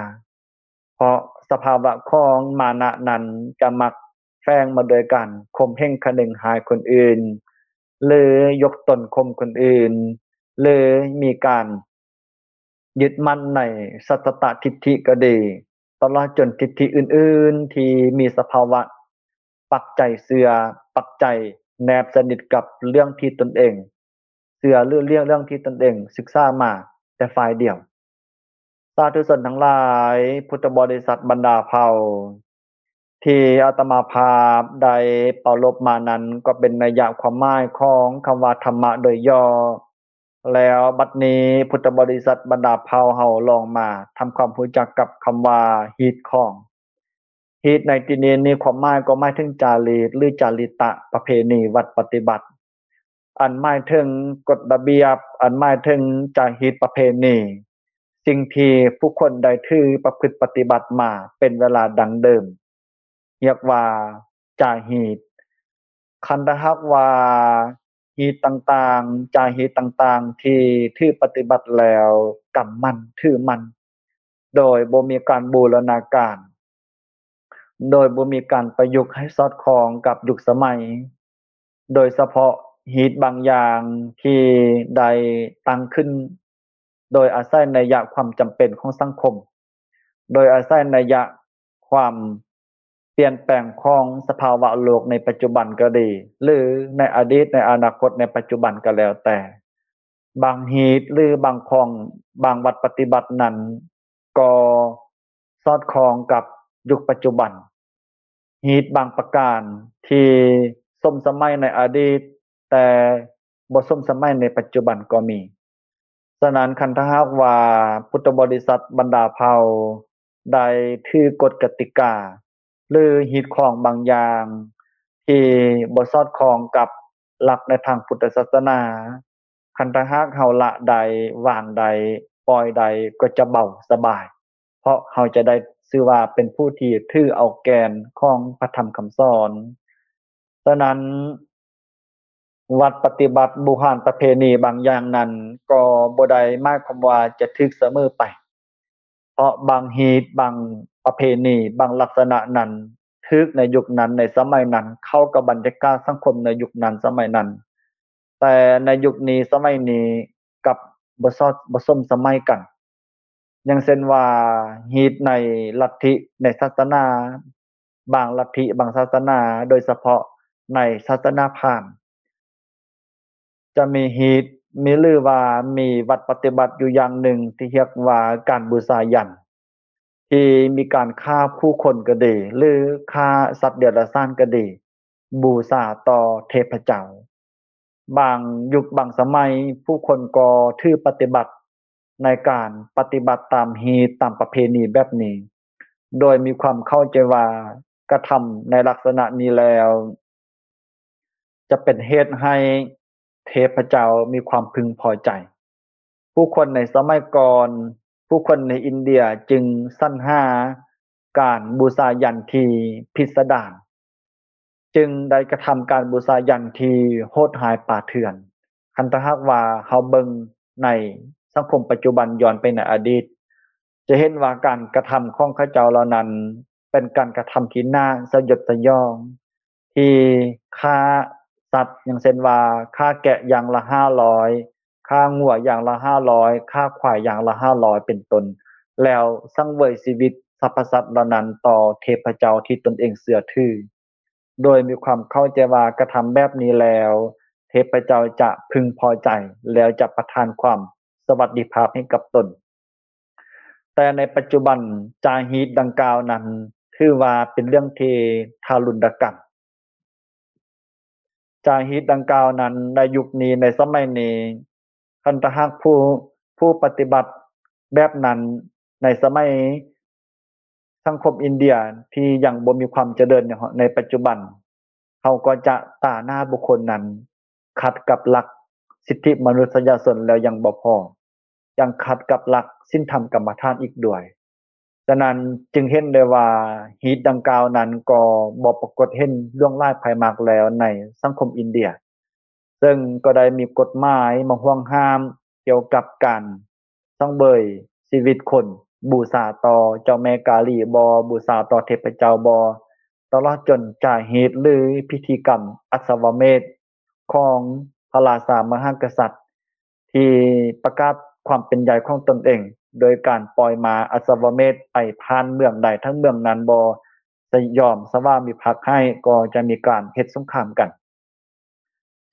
ເພາະສະພາວະຂອງມານະນັ້ນຈະມັກແຝງມາໂດຍການຂົ່ມເຫັງຄະນຶງຮ້າຍຄົນອື່ນ ຫຼື ຍົກຕົນຂົ່ມຄົນອື່ນ ຫຼື ມີການຍຶດໝັ້ນໃນສັດຕະທິດຖິກໍດີ, ຕະຫຼອດຈົນທິດຖິອື່ນໆທີ່ມີສະພາວະປັກໃຈເຊື່ອ, ປັກໃຈແນບສະໜິດກັບເລື່ອງທີ່ຕົນເອງເຊື່ອ ຫຼື ເລື່ອງ ເລື່ອງທີ່ຕົນເອງສຶກສາມາແຕ່ຝ່າຍດຽວ. ສາທຸຊົນທັງຫຼາຍ, ພຸດທະບໍລິສັດບັນດາເຜົ່າ ທີ່ອາດຕະມາພາບໄດ້ປາລົບມານັ້ນ ກໍເປັນໄນຍະຄວາມໝາຍຂອງຄຳວ່າທຳມະໂດຍຫຍໍ້. ແລ້ວບັດນີ້ ພຸດທະບໍລິສັດບັນດາເຜົ່າເຮົາລອງມາທຳຄວາມຮູ້ຈັກກັບຄຳວ່າຮີດຄອງ. ຮີດໃນທີ່ນີ້ນີ້ ຄວາມໝາຍກໍໝາຍເຖິງຈາລີກ ຫຼື ຈາລິຕະປະເພນີວັດປະຕິບັດ ອັນໝາຍເຖິງກົດລະບຽບ, ອັນໝາຍເຖິງຈາຮີດປະເພນີ, ສິ່ງທີ່ຜູ້ຄົນໄດ້ຖືປະພຶດປະຕິບັດມາເປັນເວລາດັ້ງເດີມ ຮຽກວ່າຈາຮີດ. ຄັນຖ້າຫາກວ່າຮີດຕ່າງໆ, ຈາຮີດຕ່າງໆທີ່ຖືປະຕິບັດແລ້ວກຳໝັ້ນຖືໝັ້ນ ໂດຍບໍ່ມີການບູລະນາການ, ໂດຍບໍ່ມີການປະຍຸກໃຫ້ສອດຄ່ອງກັບຍຸກສະໄໝ, ໂດຍສະເພາະຮີດບາງຢ່າງທີ່ໄດ້ຕັ້ງຂຶ້ນໂດຍອາໄສໄນຍະຄວາມຈຳເປັນຂອງສັງຄົມ, ໂດຍອາໄສໄນຍະຄວາມປ່ຽນແປງຂອງສະພາວະໂລກໃນປັດຈຸບັນກໍດີ ຫຼື ໃນອະດີດ, ໃນອະນາຄົດ, ໃນປັດຈຸບັນກໍແລ້ວແຕ່, ບາງຮີດ ຫຼື ບາງຂອງ, ບາງວັດປະຕິບັດນັ້ນ ກໍສອດຄ່ອງກັບຍຸກປັດຈຸບັນ. ຮີດບາງປະການທີ່ສົມສະໄໝໃນອະດີດ ແຕ່ບໍ່ສົມສະໄໝໃນປັດຈຸບັນກໍມີ. ສະນັ້ນ ຄັນຖ້າຫາກວ່າພຸດທະບໍລິສັດບັນດາເຜົ່າໄດ້ຖືກົດກະຕິກາ ຫຼື ຮີດຄອງບາງຢ່າງທີ່ບໍ່ສອດຄ່ອງກັບຫຼັກໃນທາງພຸດທະສາສະໜາ, ຄັນຖ້າຫາກເຮົາລະໄດ້, ວາງໄດ້, ປ່ອຍໄດ້ ກໍຈະເບົາສະບາຍ, ເພາະເຮົາຈະໄດ້ຊື່ວ່າເປັນຜູ້ທີ່ຖືເອົາແກ່ນຂອງພະທຳຄຳສອນ. ສະນັ້ນ ວັດປະຕິບັດບູຮານປະເພນີບາງຢ່າງນັ້ນ ກໍບໍ່ໄດ້ໝາຍຄວາມວ່າຈະຖືກສະເໝີໄປ, ເພາະບາງຮີດ, ບາງປະເພນີ, ບາງລັກສະນະນັ້ນ ຖືກໃນຍຸກນັ້ນ, ໃນສະໄໝນັ້ນ ເຂົ້າກັບບັນຍາກາດສັງຄົມໃນຍຸກນັ້ນສະໄໝນັ້ນ, ແຕ່ໃນຍຸກນີ້ສະໄໝນີ້ກັບບໍ່ສອດ, ບໍ່ສົມສະໄໝກັນ. ຢ່າງເຊັ່ນວ່າ ຮີດໃນລັດທິ, ໃນສາສະໜາ, ບາງລັດທິ, ບາງສາສະໜາ, ໂດຍສະເພາະໃນສາສະໜາພາມ ຈະມີຮີດ, ມີ ຫຼືວ່າມີວັດປະຕິບັດຢູ່ຢ່າງໜຶ່ງທີ່ຮຽກວ່າການບູຊາຍັນ, ທີ່ມີການຂ້າຜູ້ຄົນກໍດີ ຫຼື ຂ້າສັດເດຍລະສານກໍດີ, ບູຊາຕໍ່ເທບພະເຈົ້າ. ບາງຍຸກບາງສະໄໝ ຜູ້ຄົນກໍຖືປະຕິບັດໃນການປະຕິບັດຕາມຮີດຕາມປະເພນີແບບນີ້, ໂດຍມີຄວາມເຂົ້າໃຈວ່າກະທຳໃນລັກສະນະນີ້ແລ້ວ ຈະເປັນເຫດໃຫ້ເທບພະເຈົ້າມີຄວາມເພິ່ງພໍໃຈ. ຜູ້ຄົນໃນສະໄໝກ່ອນ, ຜູ້ຄົນໃນອິນເດຍຈຶ່ງສັນຫາການບູຊາຍັນທີ່ພິດສະດານ, ຈຶ່ງໄດ້ກະທຳການບູຊາຍັນທີ່ໂຫດຮ້າຍປ່າເຖື່ອນ. ຄັນຖ້າຫາກວ່າເຮົາເບິ່ງໃນສັງຄົມປັດຈຸບັນ ຍ້ອນໄປໃນອະດີດ, ຈະເຫັນວ່າການກະທຳຂອງເຂົາເຈົ້າເຫຼົ່ານັ້ນ ເປັນການກະທຳທີ່ໜ້າສະຫຍົດສະຫຍອງ, ທີ່ຂ້າສັດ ຢ່າງເຊັ່ນວ່າ ຂ້າແກະຢ່າງລະຫ້າຮ້ອຍ, ຂ້າງົວຢ່າງລະຫ້າຮ້ອຍ, ຂ້າຄວາຍຢ່າງລະຫ້າຮ້ອຍ ເປັນຕົ້ນ, ແລ້ວສັງເຫວີຍຊີວິດສັບພະສັດເຫຼົ່ານັ້ນຕໍ່ເທບພະເຈົ້າທີ່ຕົນເອງເຊື່ອຖື, ໂດຍມີຄວາມເຂົ້າໃຈວ່າກະທຳແບບນີ້ແລ້ວ ເທບພະເຈົ້າຈະເພິ່ງພໍໃຈ ແລ້ວຈະປະທານຄວາມສະຫວັດດີພາບໃຫ້ກັບຕົນ. ແຕ່ໃນປັດຈຸບັນ ຈາຮີດດັ່ງກ່າວນັ້ນ ຖືວ່າເປັນເລື່ອງທີ່ທາລຸນດະກຳ. ຈາຮີດດັ່ງກ່າວນັ້ນ ໃນຍຸກນີ້ ໃນສະໄໝນີ້ ຄັນຖ້າຫາກຜູ້ ຜູ້ປະຕິບັດແບບນັ້ນ ໃນສະໄໝສັງຄົມອິນເດຍທີ່ຍັງບໍ່ມີຄວາມຈະເລີນໃນ ໃນປັດຈຸບັນ, ເຮົາກໍຈະຕາໜ້າບຸກຄົນນັ້ນຂັດກັບຫຼັກສິດທິມະນຸດສະຍະຊົນແລ້ວຍັງບໍ່ພໍ, ຍັງຂັດກັບຫຼັກສິນທຳກຳມະຖານອີກດ້ວຍ. ສະນັ້ນຈຶ່ງເຫັນໄດ້ວ່າ ຮີດດັ່ງກ່າວນັ້ນກໍບໍ່ປາກົດເຫັນຫຼວງຫຼາຍພາຍມາກແລ້ວໃນສັງຄົມອິນເດຍ, ເຊິ່ງກໍໄດ້ມີກົດໝາຍມາຫ່ວງຫ້າມກ່ຽວກັບການສັງເຫວີຍຊີວິດຄົນ, ບູຊາຕໍ່ເຈົ້າແມ່ກາລີບໍ, ບູຊາຕໍ່ເທບພະເຈົ້າບໍ, ຕະຫຼອດຈົນຈາຮີດ ຫຼື ພິທີກຳອັດສະວະເມດຂອງພະລາຊາມະຫາກະສັດ ທີ່ປະກາດຄວາມເປັນໃຫຍ່ຂອງຕົນເອງ ໂດຍການປ່ອຍມ້າອັດສະວະເມດໄປຜ່ານເມືອງໃດທັງເມືອງນັ້ນບໍ່ຍອມສະຫວາມິພັກໃຫ້ ກໍຈະມີການເຮັດສົງຄາມກັນ.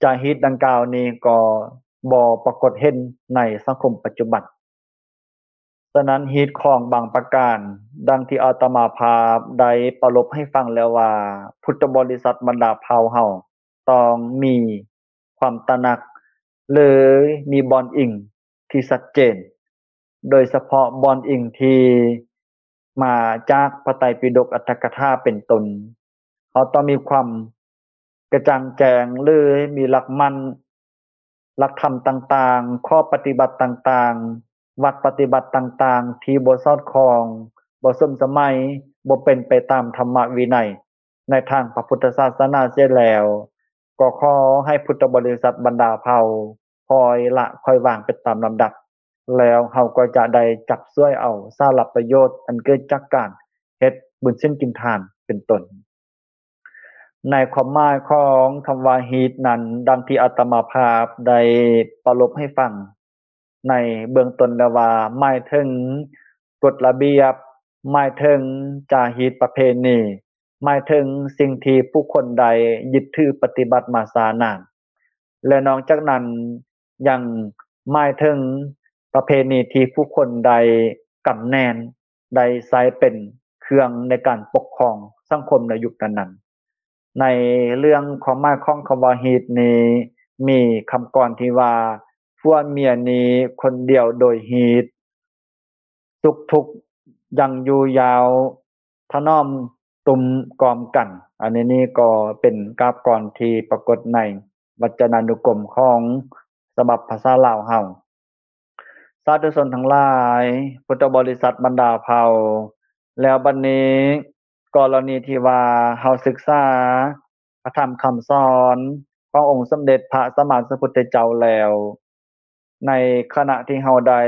ຈາຮີດດັ່ງກ່າວນີ້ກໍບໍ່ປາກົດເຫັນໃນສັງຄົມປັດຈຸບັນ. ສະນັ້ນ ຮີດຂອງບາງປະການ ດັ່ງທີ່ອາດຕະມາພາບໄດ້ປະລົບໃຫ້ຟັງແລ້ວວ່າ ພຸດທະບໍລິສັດບັນດາເຜົ່າເຮົາຕ້ອງມີຄວາມຕະໜັກ ຫຼື ມີບ່ອນອີງທີ່ຊັດເຈນ, ໂດຍສະເພາະບ່ອນອີງທີ່ມາຈາກພະໄຕປິດົກອັດຖະກະຖາເປັນຕົ້ນ. ເຮົາຕ້ອງມີຄວາມກະຈ່າງແຈ້ງ ຫຼື ມີຫຼັກໝັ້ນ, ຫຼັກທຳຕ່າງໆ, ຂໍ້ປະຕິບັດຕ່າງໆ, ວັດປະຕິບັດຕ່າງໆ ທີ່ບໍ່ສອດຄ່ອງ, ບໍ່ສົມສະໄໝ, ບໍ່ເປັນໄປຕາມທຳມະວິໄນໃນທາງພະພຸດທະສາສະໜາເສຍແລ້ວ, ກໍຂໍໃຫ້ພຸດທະບໍລິສັດບັນດາເຜົ່າ ຄ່ອຍລະຄ່ອຍວາງໄປຕາມລຳດັບ, ແລ້ວເຮົາກໍຈະໄດ້ຈັບສວຍເອົາສາລະປະໂຫຍດອັນເກີດຈາກການເຮັດບຸນສິນກິນທານເປັນຕົ້ນ. ໃນຄວາມໝາຍຂອງຄຳວ່າຮີດນັ້ນ, ດັ່ງທີ່ອາດຕະມາພາບໄດ້ປະລົບໃຫ້ຟັງໃນເບື້ອງຕົ້ນແລ້ວວ່າ ໝາຍເຖິງກົດລະບຽບ, ໝາຍເຖິງຈາຮີດປະເພນີ, ໝາຍເຖິງສິ່ງທີ່ຜູ້ຄົນໃດຍຶດຖືປະຕິບັດມາຊ້ານານ. ແລະ ນອກຈາກນັ້ນຍັງໝາຍເຖິງປະເພນີທີ່ຜູ້ຄົນໄດ້ກຳແໜ້ນ, ໄດ້ໃຊ້ເປັນເຄື່ອງໃນການປົກຄອງສັງຄົມໃນຍຸກນັ້ນໆ. ໃນເລື່ອງຄວາມໝາຍຂອງຄຳວ່າຮີດນີ້ ມີຄຳກອນທີ່ວ່າ ຜົວເມຍນີ້ຄົນດຽວໂດຍຮີດ, ສຸກທຸກຍັງຢູ່ຍາວ ຖະໜອມຕຸ່ມກອມກັນ. ອັນນີ້ນີ້ກໍເປັນກາບກອນທີ່ປາກົດໃນວັດຈະນານຸກົມຂອງສະບັບພາສາລາວເຮົາ. ສາທຸຊົນທັງຫຼາຍ, ພຸດທະບໍລິສັດບັນດາເຜົ່າ, ແລ້ວບັດນີ້ ກໍລະນີທີ່ວ່າເຮົາສຶກສາພະທຳຄຳສອນຂອງອົງສົມເດັດພະສຳມາສຳພຸດທະເຈົ້າແລ້ວ, ໃນຂະນະທີ່ເຮົາໄດ້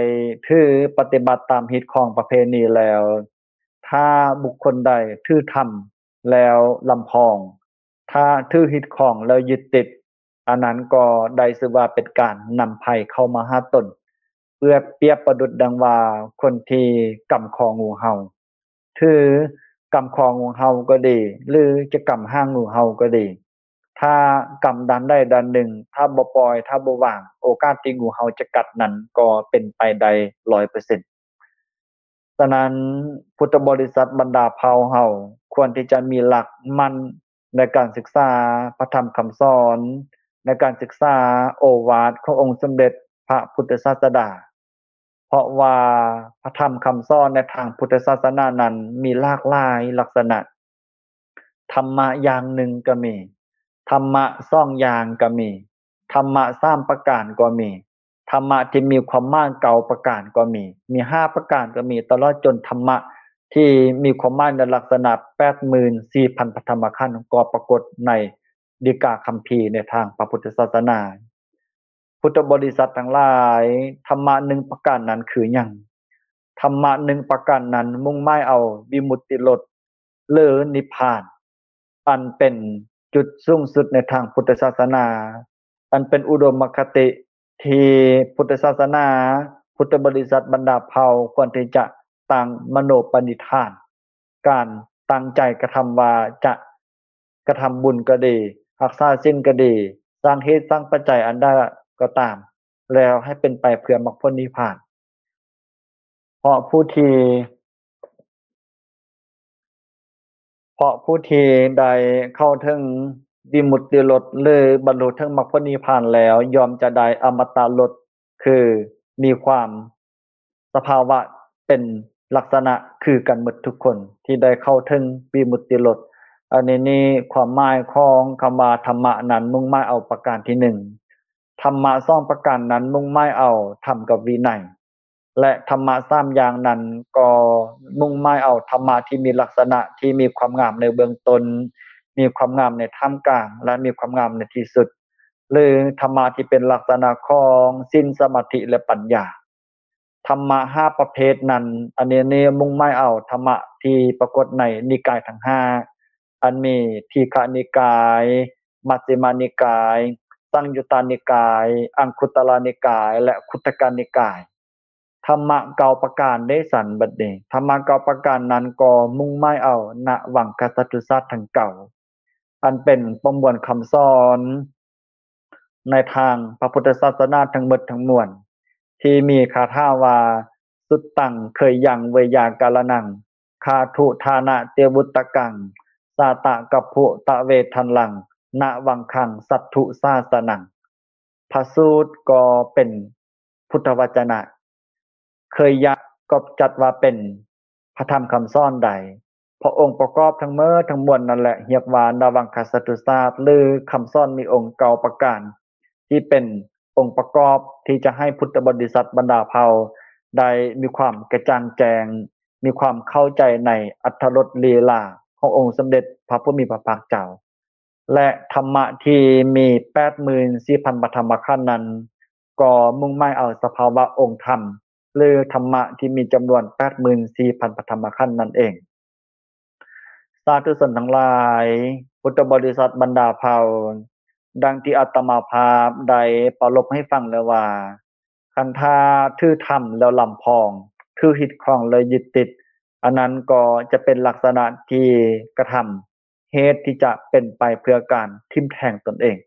ຖືປະຕິບັດຕາມຮີດຄອງປະເພນີແລ້ວ, ຖ້າບຸກຄົນໃດຖືທຳແລ້ວລຳພອງ, ຖ້າຖືຮີດຄອງແລ້ວຍຶດຕິດ, ອັນນັ້ນກໍໄດ້ຊື່ວ່າເປັນການນຳໄພເຂົ້າມາຫາຕົນ. ປຽບ ປຽບປະດຸດດັ່ງວ່າຄົນທີ່ກຳຄໍງູເຫົ່າ, ຖືກຳຄໍງູເຫົ່າກໍດີ ຫຼື ຈະກຳຫາງງູເຫົ່າກໍດີ, ຖ້າກຳດ້ານໃດດ້ານໜຶ່ງ, ຖ້າບໍ່ປ່ອຍ, ຖ້າບໍ່ວາງ, ໂອກາດທີ່ງູເຫົ່າຈະກັດນັ້ນກໍເປັນໄປໄດ້ຮ້ອຍເປີເຊັນ. ສະນັ້ນ, ພຸດທະບໍລິສັດບັນດາເຜົ່າເຮົາຄວນທີ່ຈະມີຫຼັກໝັ້ນໃນການສຶກສາພະທຳຄຳສອນ, ໃນການສຶກສາໂອວາດຂອງອົງສົມເດັດພະພຸດທະສາສະດາ, ເພາະວ່າພະທຳຄຳສອນໃນທາງພຸດທະສາສະໜານັ້ນມີຫຼາກຫຼາຍລັກສະນະ. ທຳມະຢ່າງໜຶ່ງກໍມີ, ທຳມະສອງຢ່າງກໍມີ, ທຳມະສາມປະການກໍມີ. ທຳມະທີ່ມີຄວາມໝາຍເກົ້າປະການກໍມີ, ມີຫ້າປະການກໍມີ, ຕະຫຼອດຈົນທຳມະທີ່ມີຄວາມໝາຍໃນລັກສະນະແປດໝື່ນສີ່ພັນພະທຳມະຂັນ ກໍປາກົດໃນດີກາຄຳພີໃນທາງພະພຸດທະສາສະໜາ. ພຸດທະບໍລິສັດທັງຫຼາຍ, ທຳມະໜຶ່ງປະການນັ້ນຄືຫຍັງ? ທຳມະໜຶ່ງປະການນັ້ນມຸ່ງໝາຍເອົາວິມຸດຕິລົດ ຫຼື ນິບພານ, ອັນເປັນຈຸດສູງສຸດໃນທາງພຸດທະສາສະໜາ, ອັນເປັນອຸດົມມະຄະຕິທີ່ພຸດທະສາສະໜາ, ພຸດທະບໍລິສັດບັນດາເຜົ່າຄວນທີ່ຈະຕັ້ງມະໂນປະນິທານ, ການຕັ້ງໃຈກະທຳວ່າຈະກະທຳບຸນກໍດີ, ຮັກສາສິນກໍດີ, ສ້າງເຫດສ້າງປັດໄຈອັນໃດກໍຕາມ, ແລ້ວໃຫ້ເປັນໄປເພື່ອມັກຜົນນິບພານ. ເພາະຜູ້ທີ່ ເພາະຜູ້ທີ່ໄດ້ເຂົ້າເຖິງວິມຸດຕິລົດ ຫຼື ບັນລຸເຖິງມັກຜົນນິບພານແລ້ວ ຍ່ອມຈະໄດ້ອະມະຕະລົດ ຄືມີຄວາມສະພາວະເປັນລັກສະນະຄືກັນໝົດທຸກຄົນທີ່ໄດ້ເຂົ້າເຖິງວິມຸດຕິລົດ. ອັນນີ້ນີ້ຄວາມໝາຍຂອງຄຳວ່າທຳມະນັ້ນມຸ່ງໝາຍເອົາປະການທີໜຶ່ງ. ທຳມະສອງປະການນັ້ນມຸ່ງໝາຍເອົາທຳກັບວິໄນ. ແລະ ທຳມະສາມຢ່າງນັ້ນກໍມຸ່ງໝາຍເອົາທຳມະທີ່ມີລັກສະນະທີ່ມີຄວາມງາມໃນເບື້ອງຕົ້ນ, ມີຄວາມງາມໃນທ່າມກາງ ແລະ ມີຄວາມງາມໃນທີ່ສຸດ ຫຼື ທຳມະທີ່ເປັນລັກສະນະຂອງສິນ, ສະມາທິ ແລະ ປັນຍາ. ທຳມະຫ້າປະເພດນັ້ນ, ອັນນີ້ນີ້ມຸ່ງໝາຍເອົາທຳມະທີ່ປາກົດໃນນິກາຍທັງຫ້າ, ອັນມີທີຄະນິກາຍ, ມັດຊິມະນິກາຍ, ສັງຍຸດຕານິກາຍ, ອັງຄຸດຕະລານິກາຍ ແລະ ຄຸດທະກະນິກາຍ. ທຳມະເກົ້າປະການເດຊັ້ນ ບັດນີ້ ທຳມະເກົ້າປະການນັ້ນກໍມຸ່ງໝາຍເອົານະວັງຄະສັດທຸສາດທັງເກົ້າ ອັນເປັນປະມວນຄຳສອນໃນທາງພະພຸດທະສາສະໜາທັງໝົດທັງມວນ ທີ່ມີຄາຖາວ່າ ສຸດຕັງ ເຄີຍຍັງ ເວຍາກາລະນັງ ຄາທຸທານະ ເຕວຸດຕະກັງ ສາຕະກັບພຸຕະເວທັນລັງ ນະວັງຄັງ ສັດທຸສາສະນັງ. ພະສູດກໍເປັນພຸດທະວະຈະນະ, ເຄີຍຍະກໍຈັດວ່າເປັນພະທຳຄຳສອນໃດ. ເພາະອົງປະກອບທັງໝົດທັງມວນນັ້ນແຫຼະ ຮຽກວ່ານະວັງຄະສັດທຸສາດ ຫຼື ຄຳສອນມີອົງເກົ້າປະການ ທີ່ເປັນອົງປະກອບທີ່ຈະໃຫ້ພຸດທະບໍລິສັດບັນດາເຜົ່າໄດ້ມີຄວາມກະຈ່າງແຈ້ງ, ມີຄວາມເຂົ້າໃຈໃນອັດຖະລົດລີລາຂອງອົງສົມເດັດພະຜູ້ມີພະພາກເຈົ້າ. ແລະ ທຳມະທີ່ມີແປດໝື່ນສີ່ພັນພະທຳມະຂັນນັ້ນ ກໍມຸ່ງໝາຍເອົາສະພາວະອົງທຳ ຫຼື ທຳມະທີ່ມີຈຳນວນແປດໝື່ນສີ່ພັນພະທຳມະຂັນນັ້ນເອງ. ສາທຸຊົນທັງຫຼາຍ, ພຸດທະບໍລິສັດບັນດາເຜົ່າ, ດັ່ງທີ່ອາດຕະມາພາບໄດ້ປາລົບໃຫ້ຟັງແລ້ວວ່າ, ຄັນຖ້າຖືທຳແລ້ວລຳພອງ, ຖືຍຶດຄອງແລ້ວຍຶດຕິດ, ອັນນັ້ນກໍຈະເປັນລັກສະນະທີ່ກະທຳ ເຫດທີ່ຈະເປັນໄປເພື່ອການຖິ້ມແທງຕົນເອງ.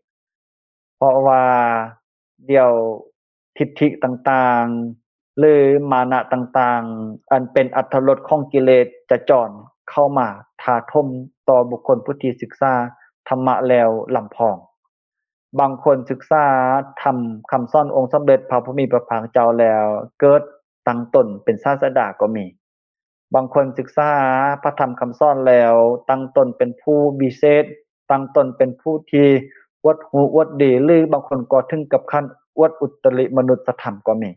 ເພາະວ່າດຽວທິດຖິຕ່າງໆ ຫຼື ມານະຕ່າງໆ ອັນເປັນອັດຖະລົດຂອງກິເລດຈະຈອນເຂົ້າມາຖາຖົມຕໍ່ບຸກຄົນຜູ້ທີ່ສຶກສາທຳມະແລ້ວລຳພອງ. ບາງຄົນສຶກສາທຳຄຳສອນອົງສົມເດັດພະຜູ້ມີພະພາກເຈົ້າແລ້ວ ເກີດຕັ້ງຕົນເປັນສາດສະດາກໍມີ. ບາງຄົນສຶກສາພະທຳຄຳສອນແລ້ວ ຕັ້ງຕົນເປັນຜູ້ວິເສດ, ຕັ້ງຕົນເປັນຜູ້ທີ່ອວດຮູ້ອວດດີ ຫຼື ບາງຄົນກໍເຖິງກັບຂັ້ນອວດອຸດຕະລິມະນຸດສະທຳກໍມີ.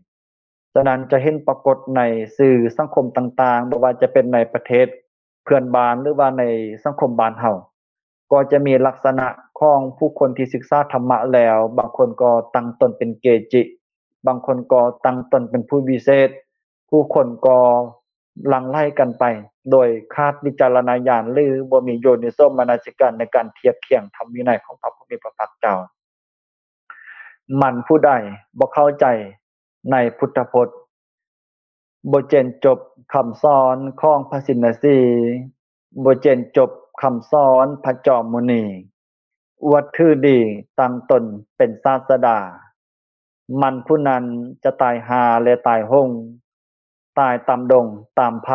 ສະນັ້ນຈະເຫັນປາກົດໃນສື່ສັງຄົມຕ່າງໆ, ບໍ່ວ່າຈະເປັນໃນປະເທດເພື່ອນບ້ານ ຫຼືວ່າໃນສັງຄົມບ້ານເຮົາ ກໍຈະມີລັກສະນະຂອງຜູ້ຄົນທີ່ສຶກສາທຳມະແລ້ວ, ບາງຄົນກໍຕັ້ງຕົນເປັນເກຈິ, ບາງຄົນກໍຕັ້ງຕົນເປັນຜູ້ວິເສດ, ຜູ້ຄົນກໍຫຼັ່ງໄຫຼກັນໄປໂດຍຂາດວິຈາລະນະຍານ ຫຼື ບໍ່ມີໂຍນິໂສມະນະສິການໃນການທຽບຄຽງທຳວິໄນຂອງພະຜູ້ມີພະພາກເຈົ້າ. ໝັ້ນຜູ້ໃດບໍ່ເຂົ້າໃຈໃນພຸດທະພົດ, ບໍ່ເຈັນຈົບຄຳສອນຂອງພະສິນນະສີ, ບໍ່ເຈັນຈົບຄຳສອນພະຈອມມຸນີ, ອວດຖືດີຕັ້ງຕົນເປັນສາດສະດາ, ໝັ້ນຜູ້ນັ້ນຈະຕາຍຫ່າ ແລະ ຕາຍໂຫງ, ຕາຍຕາມດົງຕາມໄພ,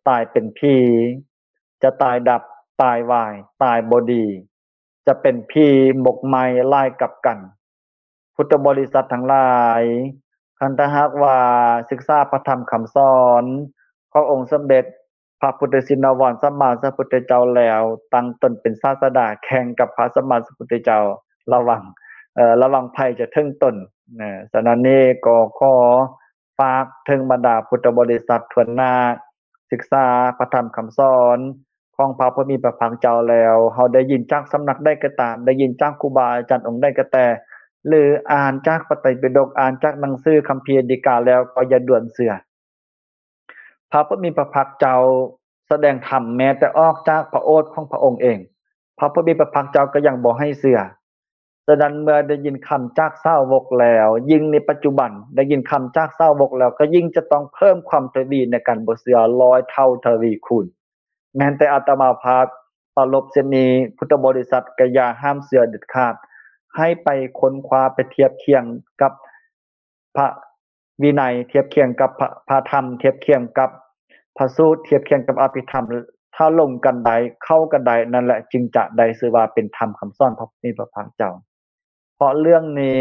ຕາຍເປັນຜີ, ຈະຕາຍດັບ, ຕາຍວາຍ, ຕາຍບໍ່ດີ, ຈະເປັນຜີໝົກໄໝ້ຫຼາຍກັບກັນ. ພຸດທະບໍລິສັດທັງຫຼາຍ, ຄັນຖ້າຫາກວ່າສຶກສາພະທຳຄຳສອນຂອງອົງສົມເດັດພະພຸດທະຊິນນະວອນສຳມາສຳພຸດທະເຈົ້າແລ້ວ, ຕັ້ງຕົນເປັນສາດສະດາແຂ່ງກັບພະສຳມາສຳພຸດທະເຈົ້າ, ລະວັງ ເອີ ລະວັງໄພຈະເຖິງຕົນນະ. ສະນັ້ນນີ້ກໍຂໍຝາກເຖິງບັນດາພຸດທະບໍລິສັດທົ່ວໜ້າ ສຶກສາພະທຳຄຳສອນຂອງພະຜູ້ມີພະພາກເຈົ້າແລ້ວ, ເຮົາໄດ້ຍິນຈາກສຳນັກໃດກໍຕາມ, ໄດ້ຍິນຈາກຄູບາອາຈານອົງໃດກໍແຕ່, ຫຼື ອ່ານຈາກພະໄຕປິດົກ, ອ່ານຈາກໜັງສືຄຳພີດີກາແລ້ວ ກໍຢ່າດ່ວນເຊື່ອ. ພະຜູ້ມີພະພາກເຈົ້າສະແດງທຳແມ້ແຕ່ອອກຈາກພະໂອດຂອງພະອົງເອງ, ພະຜູ້ມີພະພາກເຈົ້າກໍຍັງບໍ່ໃຫ້ເຊື່ອ. ສະນັ້ນເມື່ອໄດ້ຍິນຄຳຈາກສາວົກແລ້ວ, ຍິ່ງໃນປັດຈຸບັນໄດ້ຍິນຄຳຈາກສາວົກແລ້ວ, ກໍຍິ່ງຈະຕ້ອງເພີ່ມຄວາມທະວີໃນການບໍ່ເຊື່ອຮ້ອຍເທົ່າທະວີຄູນ. ແມ່ນແຕ່ອາດຕະມາພາບປາລົບເຊັ່ນນີ້, ພຸດທະບໍລິສັດກໍຢ່າຫ້າມເຊື່ອເດັດຂາດ. ໃຫ້ໄປຄົ້ນຄວ້າ, ໄປທຽບຄຽງກັບ ພະວິໄນ, ທຽບຄຽງກັບພະ ພະທຳ, ທຽບຄຽງກັບພະສູດ, ທຽບຄຽງກັບອະພິທຳ, ຖ້າລົງກັນໄດ້, ເຂົ້າກັນໄດ້, ນັ້ນແຫຼະຈຶ່ງຈະໄດ້ຊື່ວ່າເປັນທຳຄຳສອນພະຜູ້ມີພະພາກເຈົ້າ. ເພາະເລື່ອງນີ້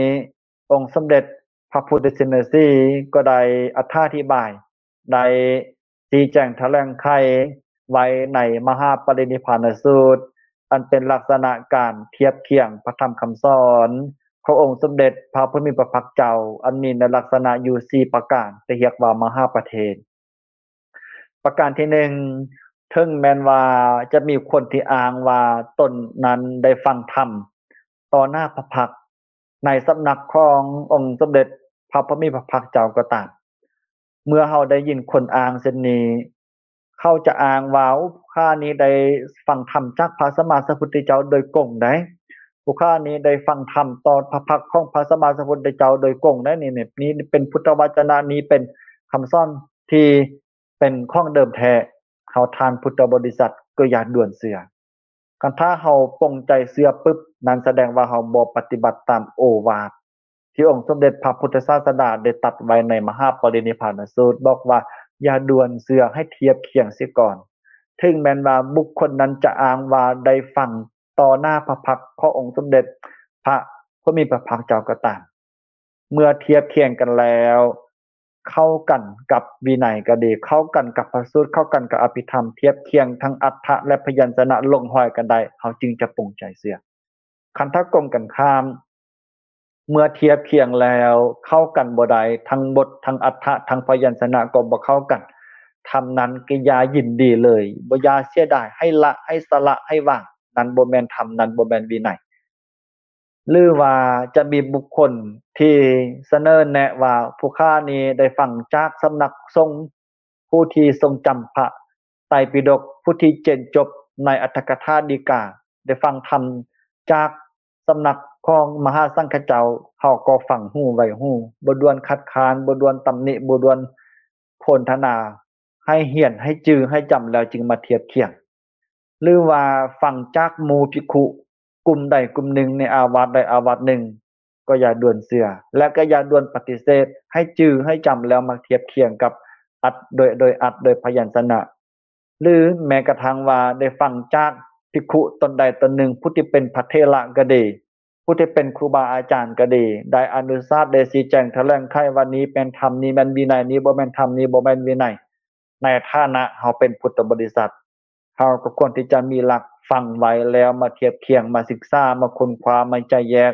ອົງສົມເດັດພະພຸດທະຊິນນະສີກໍໄດ້ອະຖາທິບາຍ, ໄດ້ຊີ້ແຈງຖະແຫຼງໄຂໄວ້ໃນມະຫາປະລິນິບພານະສູດ, ອັນເປັນລັກສະນະການທຽບຄຽງພະທຳຄຳສອນຂອງອົງສົມເດັດພະຜູ້ມີພະພາກເຈົ້າ, ອັນມີໃນລັກສະນະຢູ່ສີ່ປະການ, ທີ່ຮຽກວ່າມະຫາປະເທນ. ປະການທີໜຶ່ງ, ເຖິງແມ່ນວ່າຈະມີຄົນທີ່ອ້າງວ່າຕົນນັ້ນໄດ້ຟັງທຳຕໍ່ໜ້າພະພັກໃນສຳນັກຂອງອົງສົມເດັດພະຜູ້ມີພະພາກເຈົ້າກໍຕາມ, ເມື່ອເຮົາໄດ້ຍິນຄົນອ້າງເຊັ່ນນີ້, ເຂົາຈະອ້າງວ່າ ຜູ້ຂ້ານີ້ໄດ້ຟັງທຳຈາກພະສຳມາສຳພຸດທະເຈົ້າໂດຍກົງໃດ໋, ຜູ້ຂ້ານີ້ໄດ້ຟັງທຳຕໍ່ພະພັກຂອງພະສຳມາສຳພຸດທະເຈົ້າໂດຍກົງໃດ໋, ນີ້ ນີ້ເປັນພຸດທະວະຈະນະ, ນີ້ເປັນຄຳສອນທີ່ເປັນຂອງເດີມແທ້. ເຮົາທ່ານພຸດທະບໍລິສັດກໍຢ່າດ່ວນເຊື່ອ. ຄັນຖ້າເຮົາປົງໃຈເຊື່ອປຶບ, ນັ້ນສະແດງວ່າເຮົາບໍ່ປະຕິບັດຕາມໂອວາດ ທີ່ອົງສົມເດັດພະພຸດທະສາສະດາໄດ້ຕັດໄວ້ໃນມະຫາປະລິນິບພານະສູດ, ບອກວ່າຢ່າດ່ວນເຊື່ອ, ໃຫ້ທຽບຄຽງເສຍກ່ອນ. ເຖິງແມ່ນວ່າບຸກຄົນນັ້ນຈະອ້າງວ່າໄດ້ຟັງຕໍ່ໜ້າພະພັກຂອງອົງສົມເດັດພະຜູ້ມີພະພາກເຈົ້າກໍຕາມ, ເມື່ອທຽບຄຽງກັນແລ້ວ, ເຂົ້າກັນກັບວິໄນກໍດີ, ເຂົ້າກັນກັບພະສູດ, ເຂົ້າກັນກັບອະພິທຳ, ທຽບຄຽງທັງອັດຖະ ແລະ ພະຍັນຊະນະ ລົງຮອຍກັນໄດ້, ເຮົາຈຶ່ງຈະປົງໃຈເຊື່ອ. ຄັນຖ້າກົງກັນຂ້າມ, ເມື່ອທຽບຄຽງແລ້ວເຂົ້າກັນບໍ່ໄດ້, ທັງບົດ, ທັງອັດຖະ, ທັງພະຍັນຊະນະກໍບໍ່ເຂົ້າກັນ, ທຳນັ້ນກໍຢ່າຍິນດີເລີຍ, ບໍ່ ຢ່າເສຍດາຍ, ໃຫ້ລະ, ໃຫ້ສະຫຼະ, ໃຫ້ວາງ. ນັ້ນບໍ່ແມ່ນທຳ, ນັ້ນບໍ່ແມ່ນວິໄນ. ຫຼືວ່າຈະມີບຸກຄົນທີ່ສະເໜີແນະວ່າ ຜູ້ຂ້ານີ້ໄດ້ຟັງຈາກສຳນັກສົງ ຜູ້ທີ່ຊົງຈຳພະໄຕປິດົກ, ຜູ້ທີ່ເຈນຈົບໃນອັດຖະກະຖາດີກາ, ໄດ້ຟັງທຳຈາກສຳນັກຂອງມະຫາສັງຄະເຈົ້າ, ເຮົາກໍຟັງຫູໄວ້ຫູ, ບໍ່ດ່ວນຄັດຄ້ານ, ບໍ່ດ່ວນຕຳໜິ, ບໍ່ດ່ວນໂພນທະນາ, ໃຫ້ຮຽນ, ໃຫ້ຈື່, ໃຫ້ຈຳແລ້ວຈຶ່ງມາທຽບຄຽງ. ຫຼືວ່າຟັງຈາກໝູ່ພິກຂຸ ກຸ່ມໃດກຸ່ມໜຶ່ງໃນອາວາດໃດອາວາດໜຶ່ງ, ກໍຢ່າດ່ວນເຊື່ອ ແລະ ກໍຢ່າດ່ວນປະຕິເສດ, ໃຫ້ຈື່ໃຫ້ຈຳແລ້ວມາທຽບຄຽງກັບອັດ ໂດຍ ໂດຍອັດ ໂດຍພະຍັນຊະນະ ຫຼື ແມ້ກະທັ່ງວ່າໄດ້ຟັງຈາກພິກຂຸຕົນໃດຕົນໜຶ່ງ, ຜູ້ທີ່ເປັນພະເຖລະກໍດີ, ຜູ້ທີ່ເປັນຄູບາອາຈານກໍດີ, ໄດ້ອະນຸສາດ, ໄດ້ຊີ້ແຈງຖະແຫຼງໄຂວ່ານີ້ແມ່ນທຳ, ນີ້ແມ່ນວິໄນ, ນີ້ບໍ່ແມ່ນທຳ, ນີ້ບໍ່ແມ່ນວິໄນ. ໃນຖານະເຮົາເປັນພຸດທະບໍລິສັດ, ເຮົາກໍຄວນທີ່ຈະມີຫຼັກຟັງໄວ້ແລ້ວມາທຽບຄຽງ, ມາສຶກສາ, ມາຄົ້ນຄວ້າ, ມາແຈກແຍກ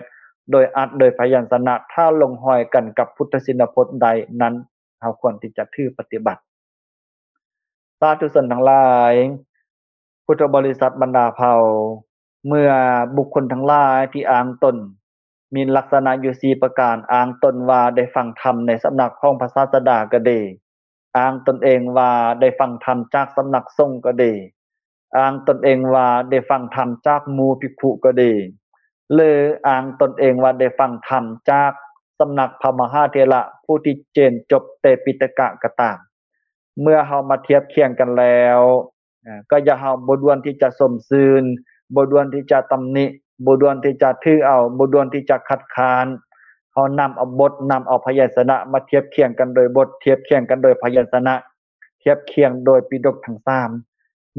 ໂດຍອັດໂດຍພະຍັນຊະນະ, ຖ້າລົງຮອຍກັນກັບພຸດທະຊິນນະພົດໃດນັ້ນ, ເຮົາຄວນທີ່ຈະຖືປະຕິບັດ. ສາທຸຊົນທັງຫຼາຍ, ພຸດທະບໍລິສັດບັນດາເຜົ່າ, ເມື່ອບຸກຄົນທັງຫຼາຍທີ່ອ້າງຕົນ ມີລັກສະນະຢູ່ສີ່ປະການ, ອ້າງຕົນວ່າໄດ້ຟັງທຳໃນສຳນັກຂອງພະສາສະດາກໍດີ, ອ້າງຕົນເອງວ່າໄດ້ຟັງທຳຈາກສຳນັກສົງກໍດີ, ອ້າງຕົນເອງວ່າໄດ້ຟັງທຳຈາກໝູ່ພິກຂຸກໍດີ, ຫຼື ອ້າງຕົນເອງວ່າໄດ້ຟັງທຳຈາກສຳນັກພະມະຫາເຖລະຜູ້ທີ່ເຈນຈົບເຕປິຕະກະກໍຕາມ, ເມື່ອເຮົາມາທຽບຄຽງກັນແລ້ວ, ເອີ ກໍຢ່າ ເຮົາບໍ່ດ່ວນທີ່ຈະຊົມຊື່ນ, ບໍ່ດ່ວນທີ່ຈະຕຳໜິ, ບໍ່ດ່ວນທີ່ຈະຖືເອົາ, ບໍ່ດ່ວນທີ່ຈະຄັດຄ້ານ. ເຮົານຳເອົາບົດ, ນຳເອົາພະຍັນຊະນະມາທຽບຄຽງກັນໂດຍບົດ, ທຽບຄຽງກັນໂດຍພະຍັນຊະນະ, ທຽບຄຽງໂດຍປິດົກທັງສາມ.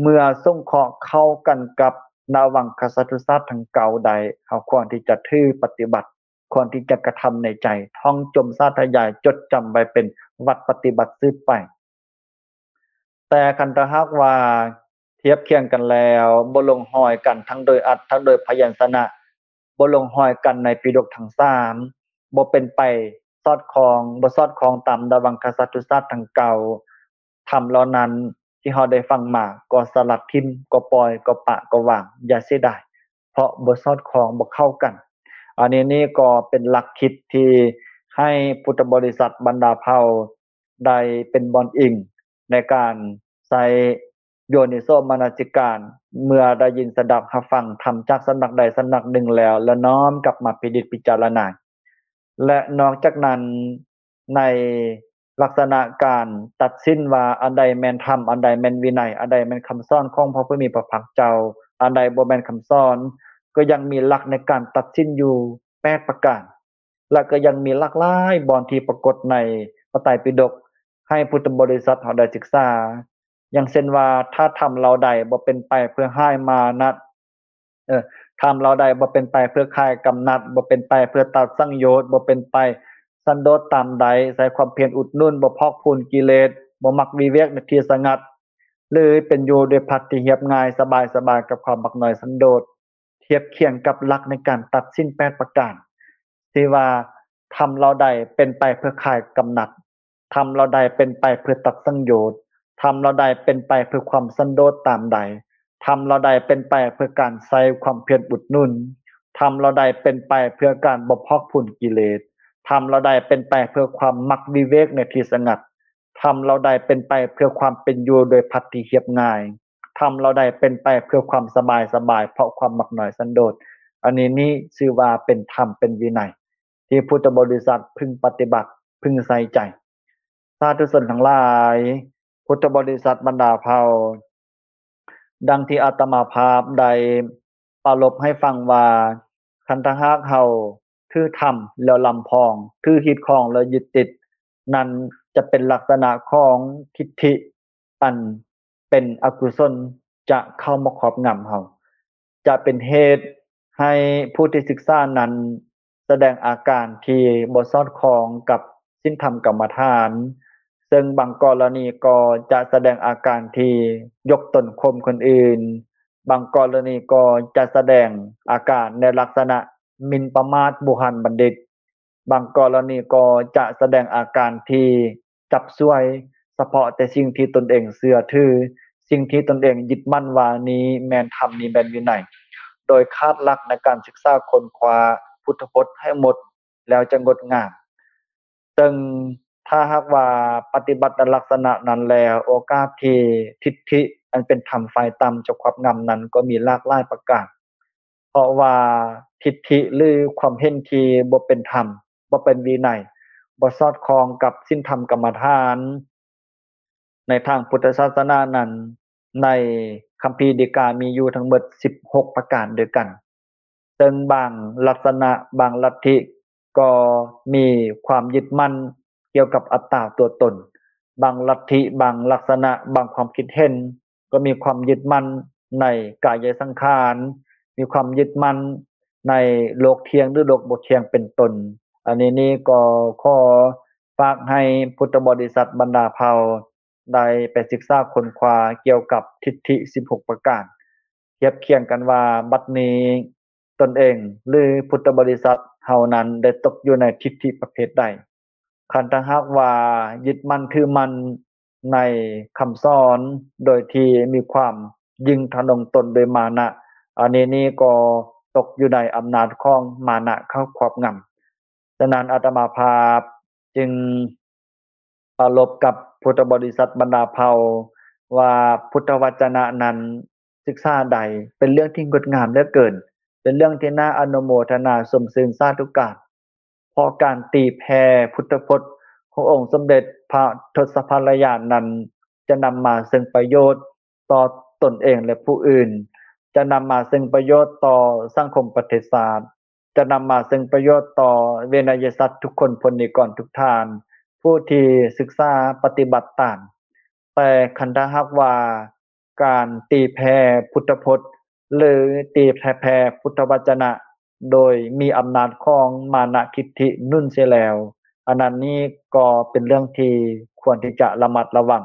ເມື່ອສົງເຄາະເຂົ້າກັນກັບນະວັງຄະສັດທຸສາດທັງເກົ້າໄດ້, ເຮົາຄວນທີ່ຈະຖືປະຕິບັດ, ຄວນທີ່ຈະກະທຳໃນໃຈ, ທ່ອງຈົ່ມສາທະຍາຍ, ຈົດຈຳໄວ້ເປັນວັດປະຕິບັດສືບໄປ. ແຕ່ຄັນຖ້າຫາກວ່າທຽບຄຽງກັນແລ້ວ ບໍ່ລົງຮອຍກັນທັງໂດຍອັດ ທັງໂດຍພະຍັນຊະນະ, ບໍ່ລົງຮອຍກັນໃນປິດົກທັງສາມ, ບໍ່ເປັນໄປສອດຄ່ອງ, ບໍ່ສອດຄ່ອງຕາມດາວັງຄະສັດທຸສາດທັງເກົ້າ, ທຳເຫຼົ່ານັ້ນທີ່ເຮົາໄດ້ຟັງມາກໍສະຫຼັດຖິ້ມ, ກໍປ່ອຍ, ກໍປະ, ກໍວາງ, ຢ່າເສຍດາຍ, ເພາະບໍ່ສອດຄ່ອງ, ບໍ່ເຂົ້າກັນ. ອັນນີ້ນີ້ກໍເປັນຫຼັກຄິດທີ່ໃຫ້ພຸດທະບໍລິສັດບັນດາເຜົ່າ ໄດ້ເປັນບ່ອນອີງໃນການໃຊ້ໂຍນິໂສມະນະສິການ ເມື່ອໄດ້ຍິນສະດັບຮັບຟັງທຳຈາກສຳນັກໃດສຳນັກໜຶ່ງແລ້ວ ແລະ ນ້ອມກັບມາພິນິດພິຈາລະນາ. ແລະ ນອກຈາກນັ້ນ ໃນລັກສະນະການຕັດສິນວ່າອັນໃດແມ່ນທຳ, ອັນໃດແມ່ນວິໄນ, ອັນໃດແມ່ນຄຳສອນຂອງພະຜູ້ມີພະພາກເຈົ້າ, ອັນໃດບໍ່ແມ່ນຄຳສອນ, ກໍຍັງມີຫຼັກໃນການຕັດສິນຢູ່ແປດປະການ. ແລະ ກໍຍັງມີຫຼາກຫຼາຍບ່ອນທີ່ປາກົດໃນພະໄຕປິດົກ ໃຫ້ພຸດທະບໍລິສັດເຮົາໄດ້ສຶກສາ, ຢ່າງເຊັ່ນວ່າ ຖ້າທຳເຫຼົ່າໃດບໍ່ເປັນໄປເພື່ອຮ້າຍມານະ, ເອີ ທຳເຫຼົ່າໃດບໍ່ເປັນໄປເພື່ອຄາຍກຳໜັດ, ບໍ່ເປັນໄປເພື່ອຕັດສັງໂຍດ, ບໍ່ເປັນໄປສັນໂດດຕາມໃດ, ໃຊ້ຄວາມພຽນອຸດໜູນ, ບໍ່ພອກພູນກິເລດ, ບໍ່ມັກວິເວກໃນທີ່ສະຫງັດ, ຫຼື ເປັນຢູ່ດ້ວຍພັດທີ່ຮຽບງ່າຍ, ສະບາຍໆ ກັບຄວາມມັກນ້ອຍສັນໂດດ. ທຽບຄຽງກັບຫຼັກໃນການຕັດສິນແປດປະການ ທີ່ວ່າ ທຳເຫຼົ່າໃດເປັນໄປເພື່ອຄາຍກຳໜັດ, ທຳເຫຼົ່າໃດເປັນໄປເພື່ອຕັດສັງໂຍດ, ທຳເຫຼົ່າໃດເປັນໄປເພື່ອຄວາມສັນໂດດຕາມໃດ, ທຳເຫຼົ່າໃດເປັນໄປເພື່ອການໃຊ້ຄວາມພຽນອຸດໜູນ, ທຳເຫຼົ່າໃດເປັນໄປເພື່ອການບໍ່ພອກພູນກິເລດ, ທຳເຫຼົ່າໃດເປັນໄປເພື່ອຄວາມມັກວິເວກໃນທີ່ສະຫງັດ, ທຳເຫຼົ່າໃດເປັນໄປເພື່ອຄວາມເປັນຢູ່ໂດຍພັດທີ່ຮຽບງ່າຍ, ທຳເຫຼົ່າໃດເປັນໄປເພື່ອຄວາມສະບາຍສະບາຍ ເພາະຄວາມມັກນ້ອຍສັນໂດດ. ອັນນີ້ນີ້ຊື່ວ່າເປັນທຳເປັນວິໄນ ທີ່ພຸດທະບໍລິສັດເພິ່ງປະຕິບັດ, ເພິ່ງໃສ່ໃຈ. ສາທຸຊົນທັງຫຼາຍ, ພຸດທະບໍລິສັດບັນດາເຜົ່າ, ດັ່ງທີ່ອາດຕະມາພາບໄດ້ປາລົບໃຫ້ຟັງວ່າ, ຄັນຖ້າຫາກເຮົາຖືທຳແລ້ວລຳພອງ, ຖືຮີດຄອງແລ້ວຍຶດຕິດ, ນັ້ນຈະເປັນລັກສະນະຂອງທິດຖິ ອັນເປັນອະກຸສົນຈະເຂົ້າມາຄອບງຳເຮົາ, ຈະເປັນເຫດໃຫ້ຜູ້ທີ່ສຶກສານັ້ນສະແດງອາການທີ່ບໍ່ສອດຄ່ອງກັບສິນທຳກຳມະຖານ, ເຊິ່ງບາງກໍລະນີກໍຈະສະແດງອາການທີ່ຍົກຕົນຂົ່ມຄົນອື່ນ, ບາງກໍລະນີກໍຈະສະແດງອາການໃນລັກສະນະໝິ່ນປະໝາດບູຮານບັນດິດ, ບາງກໍລະນີກໍຈະສະແດງອາການທີ່ຈັບສວຍສະເພາະແຕ່ສິ່ງທີ່ຕົນເອງເຊື່ອຖື, ສິ່ງທີ່ຕົນເອງຍຶດໝັ້ນວ່ານີ້ແມ່ນທຳ, ນີ້ແມ່ນວິໄນ, ໂດຍຂາດຫຼັກໃນການສຶກສາຄົ້ນຄວ້າພຸດທະພົດໃຫ້ໝົດ ແລ້ວຈະງົດງາມ. ເຊິ່ງຖ້າຫາກວ່າປະຕິບັດໃນລັກສະນະນັ້ນແລ້ວ, ໂອກາດທີ່ທິດຖິອັນເປັນທຳຝ່າຍຕ່ຳຈະຄວອບງຳນັ້ນກໍມີຫຼາກຫຼາຍປະການ. ເພາະວ່າທິດຖິ ຫຼື ຄວາມເຫັນທີ່ບໍ່ເປັນທຳ, ບໍ່ເປັນວິໄນ, ບໍ່ສອດຄ່ອງກັບສິນທຳກຳມະຖານ ໃນທາງພຸດທະສາສະໜານັ້ນ, ໃນຄຳພີດີກາມີຢູ່ທັງໝົດສິບຫົກປະການດ້ວຍກັນ. ເຊິ່ງບາງລັກສະນະ, ບາງລັດທິກໍມີຄວາມຍຶດໝັ້ນກ່ຽວກັບອັດຕາຕົວຕົນ, ບາງລັດທິ, ບາງລັກສະນະ, ບາງຄວາມຄິດເຫັນ ກໍມີຄວາມຍຶດໝັ້ນໃນກາຍະສັງຂານ, ມີຄວາມຍຶດໝັ້ນໃນໂລກທ່ຽງ ຫຼື ໂລກບໍ່ທ່ຽງເປັນຕົ້ນ. ອັນນີ້ນີ້ກໍຂໍຝາກໃຫ້ພຸດທະບໍລິສັດບັນດາເຜົ່າໄດ້ໄປສຶກສາຄົ້ນຄວ້າກ່ຽວກັບທິດຖິສິບຫົກປະການ, ທຽບຄຽງກັນວ່າບັດນີ້ຕົນເອງ ຫຼື ພຸດທະບໍລິສັດເຮົານັ້ນໄດ້ຕົກຢູ່ໃນທິດຖິປະເພດໃດ. ຄັນຖ້າຫາກວ່າຍຶດໝັ້ນຖືໝັ້ນໃນຄຳສອນໂດຍທີ່ມີຄວາມຍິ່ງທະນົງຕົນໂດຍມານະ, ອັນນີ້ນີ້ກໍຕົກຢູ່ໃນອຳນາດຂອງມານະເຂົ້າຄວອບງຳ. ສະນັ້ນອາດຕະມາພາບຈຶ່ງປາລົບກັບພຸດທະບໍລິສັດບັນດາເຜົ່າວ່າ ພຸດທະວັດຈະນະນັ້ນ ສຶກສາໄດ້ ເປັນເລື່ອງທີ່ງົດງາມເຫຼືອເກີນ, ເປັນເລື່ອງທີ່ໜ້າອະນຸໂມທະນາຊົມຊື່ນສາທຸການ. ເພາະການຕີແຜ່ພຸດທະພົດຂອງອົງສົມເດັດພະທົດສະພະລະຍານນັ້ນ ຈະນຳມາເຊິ່ງປະໂຫຍດຕໍ່ຕົນເອງ ແລະ ຜູ້ອື່ນ, ຈະນຳມາເຊິ່ງປະໂຫຍດຕໍ່ສັງຄົມປະເທດຊາດ, ຈະນຳມາເຊິ່ງປະໂຫຍດຕໍ່ເວໄນຍະສັດທຸກຄົນ, ພົນນິກອນທຸກທ່ານ ຜູ້ທີ່ສຶກສາປະຕິບັດຕາມ. ແຕ່ຄັນຖ້າຫາກວ່າ ການຕີແຜ່ພຸດທະພົດ ຫຼື ຕີແຜ່ພຸດທະວັດຈະນະ ໂດຍມີອຳນາດຂອງມານະທິດຖິໜູນເສຍແລ້ວ, ອັນນັ້ນນີ້ກໍເປັນເລື່ອງທີ່ຄວນທີ່ຈະລະມັດລະວັງ,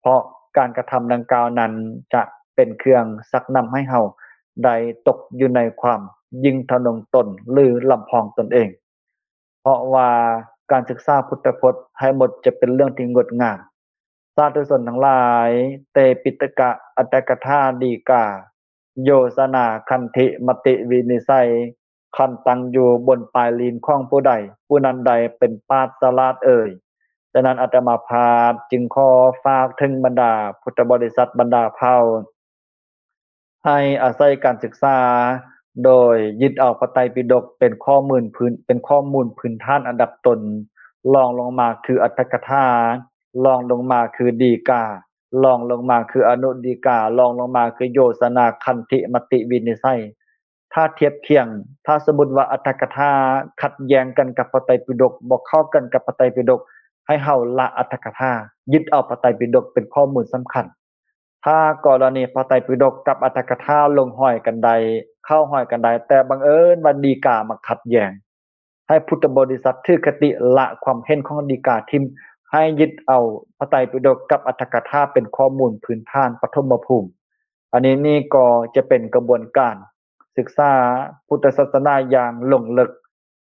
ເພາະການກະທຳດັ່ງກ່າວນັ້ນຈະເປັນເຄື່ອງຊັກນຳໃຫ້ເຮົາໄດ້ຕົກຢູ່ໃນຄວາມ ຍິ່ງທະນົງຕົນ ຫຼື ລຳພອງຕົນເອງ. ເພາະວ່າການສຶກສາພຸດທະພົດໃຫ້ໝົດຈະເປັນເລື່ອງທີ່ງົດງາມ. ສາທຸຊົນທັງຫຼາຍ, ເຕປິຕະກະ ອັດຖະກະຖາ ດີກາ ໂຍຊະນາ ຄັນທິ ມະຕິ ວິນິດໄສ ຄັນຕັ້ງຢູ່ບົນປາຍລີນຂອງຜູ້ໃດ, ຜູ້ນັ້ນໃດເປັນປາດສະຫຼາດເອີຍ. ສະນັ້ນ ອາດຕະມາພາບຈຶ່ງຂໍຝາກເຖິງບັນດາພຸດທະບໍລິສັດບັນດາເຜົ່າ ໃຫ້ອາໄສການສຶກສາ ໂດຍຍຶດເອົາພະໄຕປິດົກເປັນຂໍ້ມູນພື້ນ ເປັນຂໍ້ມູນພື້ນຖານອັນດັບຕົ້ນ, ລອງລົງມາຄືອັດຖະກະຖາ, ລອງລົງມາຄືດີກາ, ລອງລົງມາຄືອະນຸດີກາ, ລອງລົງມາຄືໂຍຊະນາ ຄັນທິ ມະຕິ ວິນິດໄສ. ຖ້າທຽບຄຽງ, ຖ້າສົມມຸດວ່າອັດຖະກະຖາຂັດແຍ້ງກັນກັບພະໄຕປິດົກ, ບໍ່ເຂົ້າກັນກັບພະໄຕປິດົກ, ໃຫ້ເຮົາລະອັດຖະກະຖາ, ຍຶດເອົາພະໄຕປິດົກເປັນຂໍ້ມູນສຳຄັນ. ຖ້າກໍລະນີພະໄຕປິດົກກັບອັດຖະກະຖາລົງຮອຍກັນໄດ້, ເຂົ້າຮອຍກັນໄດ້, ແຕ່ບັງເອີນວ່າດີກາມາຂັດແຍ້ງ, ໃຫ້ພຸດທະບໍລິສັດຖືຄະຕິລະຄວາມເຫັນຂອງດີກາຖິ້ມ, ໃຫ້ຍຶດເອົາພະໄຕປິດົກກັບອັດຖະກະຖາເປັນຂໍ້ມູນພື້ນຖານປະຖົມມະພູມ. ອັນນີ້ນີ້ກໍຈະເປັນກະບວນການສຶກສາພຸດທະສາສະໜາຢ່າງລົງເລິກ,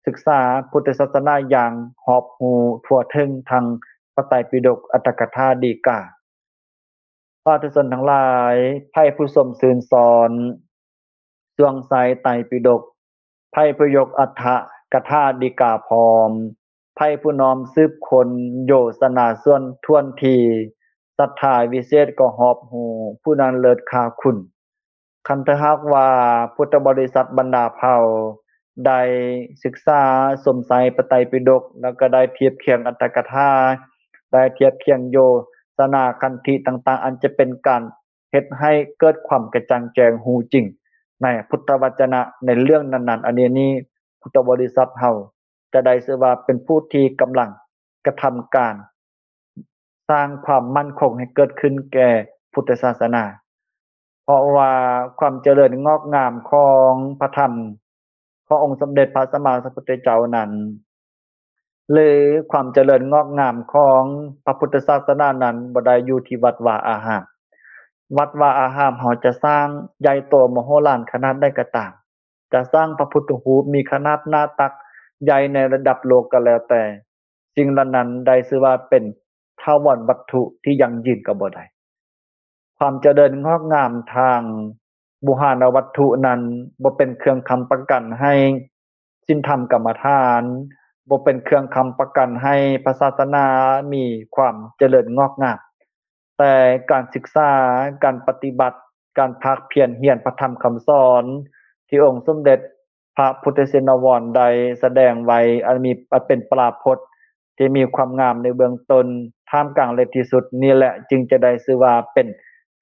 ສຶກສາພຸດທະສາສະໜາຢ່າງຮອບຮູ້ທົ່ວເຖິງທັງພະໄຕປິດົກ, ອັດຖະກະຖາ, ດີກາ. ສາທຸຊົນທັງຫຼາຍ, ໃຜຜູ້ຊົມຊື່ນຊອນຊ່ວງໄຊໄຕປິດົກ, ໃຜຜູ້ຍົກອັດຖະກະຖາດີກາພ້ອມ, ໃຜຜູ້ນ້ອມສືບຄົ້ນໂຍຊະນາສ່ວນຖ້ວນທີ, ສັດທາວິເສດກໍຮອບຮູ້, ຜູ້ນັ້ນເລີດຄ່າຄຸນ. ຄັນຖ້າຫາກວ່າພຸດທະບໍລິສັດບັນດາເຜົ່າໄດ້ສຶກສາຊົມໄຊພະໄຕປິດົກ ແລ້ວກໍໄດ້ທຽບຄຽງອັດຖະກະຖາ, ໄດ້ທຽບຄຽງໂຍຊະນາຄັນທິຕ່າງໆ ອັນຈະເປັນການເຮັດໃຫ້ເກີດຄວາມກະຈ່າງແຈ້ງຮູ້ຈິງໃນພຸດທະວະຈະນະໃນເລື່ອງນັ້ນໆ, ອັນນີ້ນີ້ ພຸດທະບໍລິສັດເຮົາຈະໄດ້ຊື່ວ່າເປັນຜູ້ທີ່ກຳລັງກະທຳການ ສ້າງຄວາມໝັ້ນຄົງໃຫ້ເກີດຂຶ້ນແກ່ພຸດທະສາສະໜາ. ເພາະວ່າຄວາມຈະເລີນງອກງາມຂອງພະທຳຂອງອົງສົມເດັດພະສຳມາສຳພຸດທະເຈົ້ານັ້ນ ຫຼື ຄວາມຈະເລີນງອກງາມຂອງພະພຸດທະສາສະໜານັ້ນ ບໍ່ໄດ້ຢູ່ທີ່ວັດວາອາຮາມ. ວັດວາອາຮາມເຮົາຈະສ້າງໃຫຍ່ໂຕມະໂຫລານຂະໜາດໃດກໍຕາມ, ຈະສ້າງພະພຸດທະຮູບມີຂະໜາດໜ້າຕັກໃຫຍ່ໃນລະດັບໂລກກໍແລ້ວແຕ່, ສິ່ງເຫຼົ່ານັ້ນໄດ້ຊື່ວ່າເປັນຖາວອນວັດຖຸທີ່ຢັ້ງຢືນກໍບໍ່ໄດ້. ຄວາມຈະເລີນງອກງາມທາງບູຫານະວັດຖຸນັ້ນ ບໍ່ເປັນເຄື່ອງຄ້ຳປະກັນໃຫ້ສິນທຳກຳມະຖານ, ບໍ່ເປັນເຄື່ອງຄ້ຳປະກັນໃຫ້ພະສາສະໜາມີຄວາມຈະເລີນງອກງາມ. ແຕ່ການສຶກສາ, ການປະຕິບັດ, ການພາກພຽນຮຽນພະທຳຄຳສອນ ທີ່ອົງສົມເດັດພະພຸດທະຊິນນະວອນໄດ້ສະແດງໄວ້ ອັນມີ ອັນເປັນປາພົດທີ່ມີຄວາມງາມໃນເບື້ອງຕົ້ນ, ທ່າມກາງ ແລະ ທີ່ສຸດ, ນີ້ແຫຼະຈຶ່ງຈະໄດ້ຊື່ວ່າເປັນ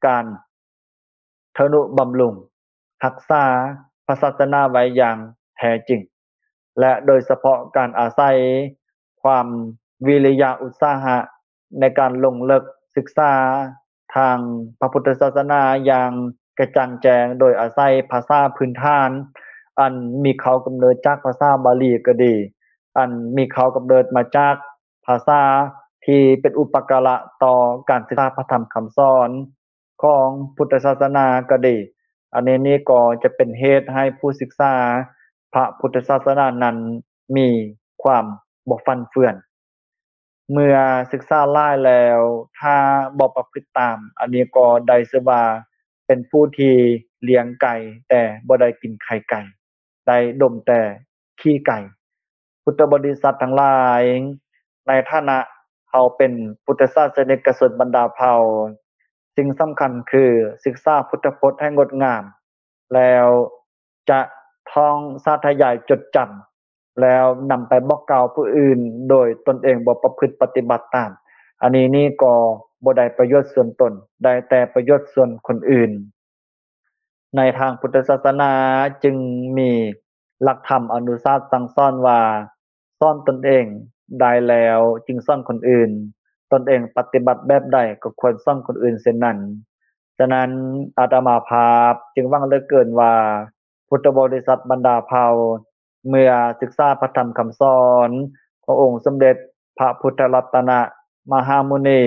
ການ ທະນຸບຳລຸງຮັກສາພະສາສະໜາໄວ້ຢ່າງແທ້ຈິງ ແລະ ໂດຍສະເພາະການອາໄສຄວາມວິລິຍະອຸດສາຫະໃນການລົງເລິກສຶກສາທາງພະພຸດທະສາສະໜາຢ່າງກະຈ່າງແຈ້ງ ໂດຍອາໄສພາສາພື້ນຖານອັນມີເຄົ້າກຳເນີດຈາກພາສາບາລີກໍດີ, ອັນມີເຄົ້າກຳເນີດມາຈາກພາສາທີ່ເປັນອຸປະກາລະຕໍ່ການສຶກສາພະທຳຄຳສອນ ຂອງພຸດທະສາສະໜາກໍດີ, ອັນນີ້ນີ້ກໍຈະເປັນເຫດໃຫ້ຜູ້ສຶກສາພະພຸດທະສາສະໜານັ້ນມີຄວາມບໍ່ຟັ່ນເຟືອນ. ເມື່ອສຶກສາຫຼາຍແລ້ວ ຖ້າບໍ່ປະພຶດຕາມ, ອັນນີ້ກໍໄດ້ຊື່ວ່າເປັນຜູ້ທີ່ລ້ຽງໄກ່ແຕ່ບໍ່ໄດ້ກິນໄຂ່ໄກ່. ໄດ້ດົມແຕ່ຂີ້ໄກ່. ພຸດທະບໍລິສັດທັງຫຼາຍ, ໃນຖານະເຮົາເປັນພຸດທະສາສະນິກະຊົນບັນດາເຜົ່າ, ສິ່ງສຳຄັນຄືສຶກສາພຸດທະພົດໃຫ້ງົດງາມ, ແລ້ວຈະທ່ອງສາທະຍາຍຈົດຈຳ, ແລ້ວນຳໄປບອກກ່າວຜູ້ອື່ນ ໂດຍຕົນເອງບໍ່ປະພຶດປະຕິບັດຕາມ. ອັນນີ້ນີ້ກໍບໍ່ໄດ້ປະໂຫຍດສ່ວນຕົນ, ໄດ້ແຕ່ປະໂຫຍດສ່ວນຄົນອື່ນ. ໃນທາງພຸດທະສາສະໜາຈຶ່ງມີຫຼັກທຳອະນຸສາດສັ່ງສອນວ່າ, ສອນຕົນເອງໄດ້ແລ້ວຈຶ່ງສອນຄົນອື່ນ, ຕົນເອງປະຕິບັດແບບໃດກໍຄວນສອນຄົນອື່ນເຊັ່ນນັ້ນ. ສະນັ້ນ ອາດຕະມາພາບຈຶ່ງຫວັງເຫຼືອເກີນວ່າ ພຸດທະບໍລິສັດບັນດາເຜົ່າ ເມື່ອສຶກສາພະທຳຄຳສອນຂອງອົງສົມເດັດພະພຸດທະລັດຕະນະມະຫາມຸນີ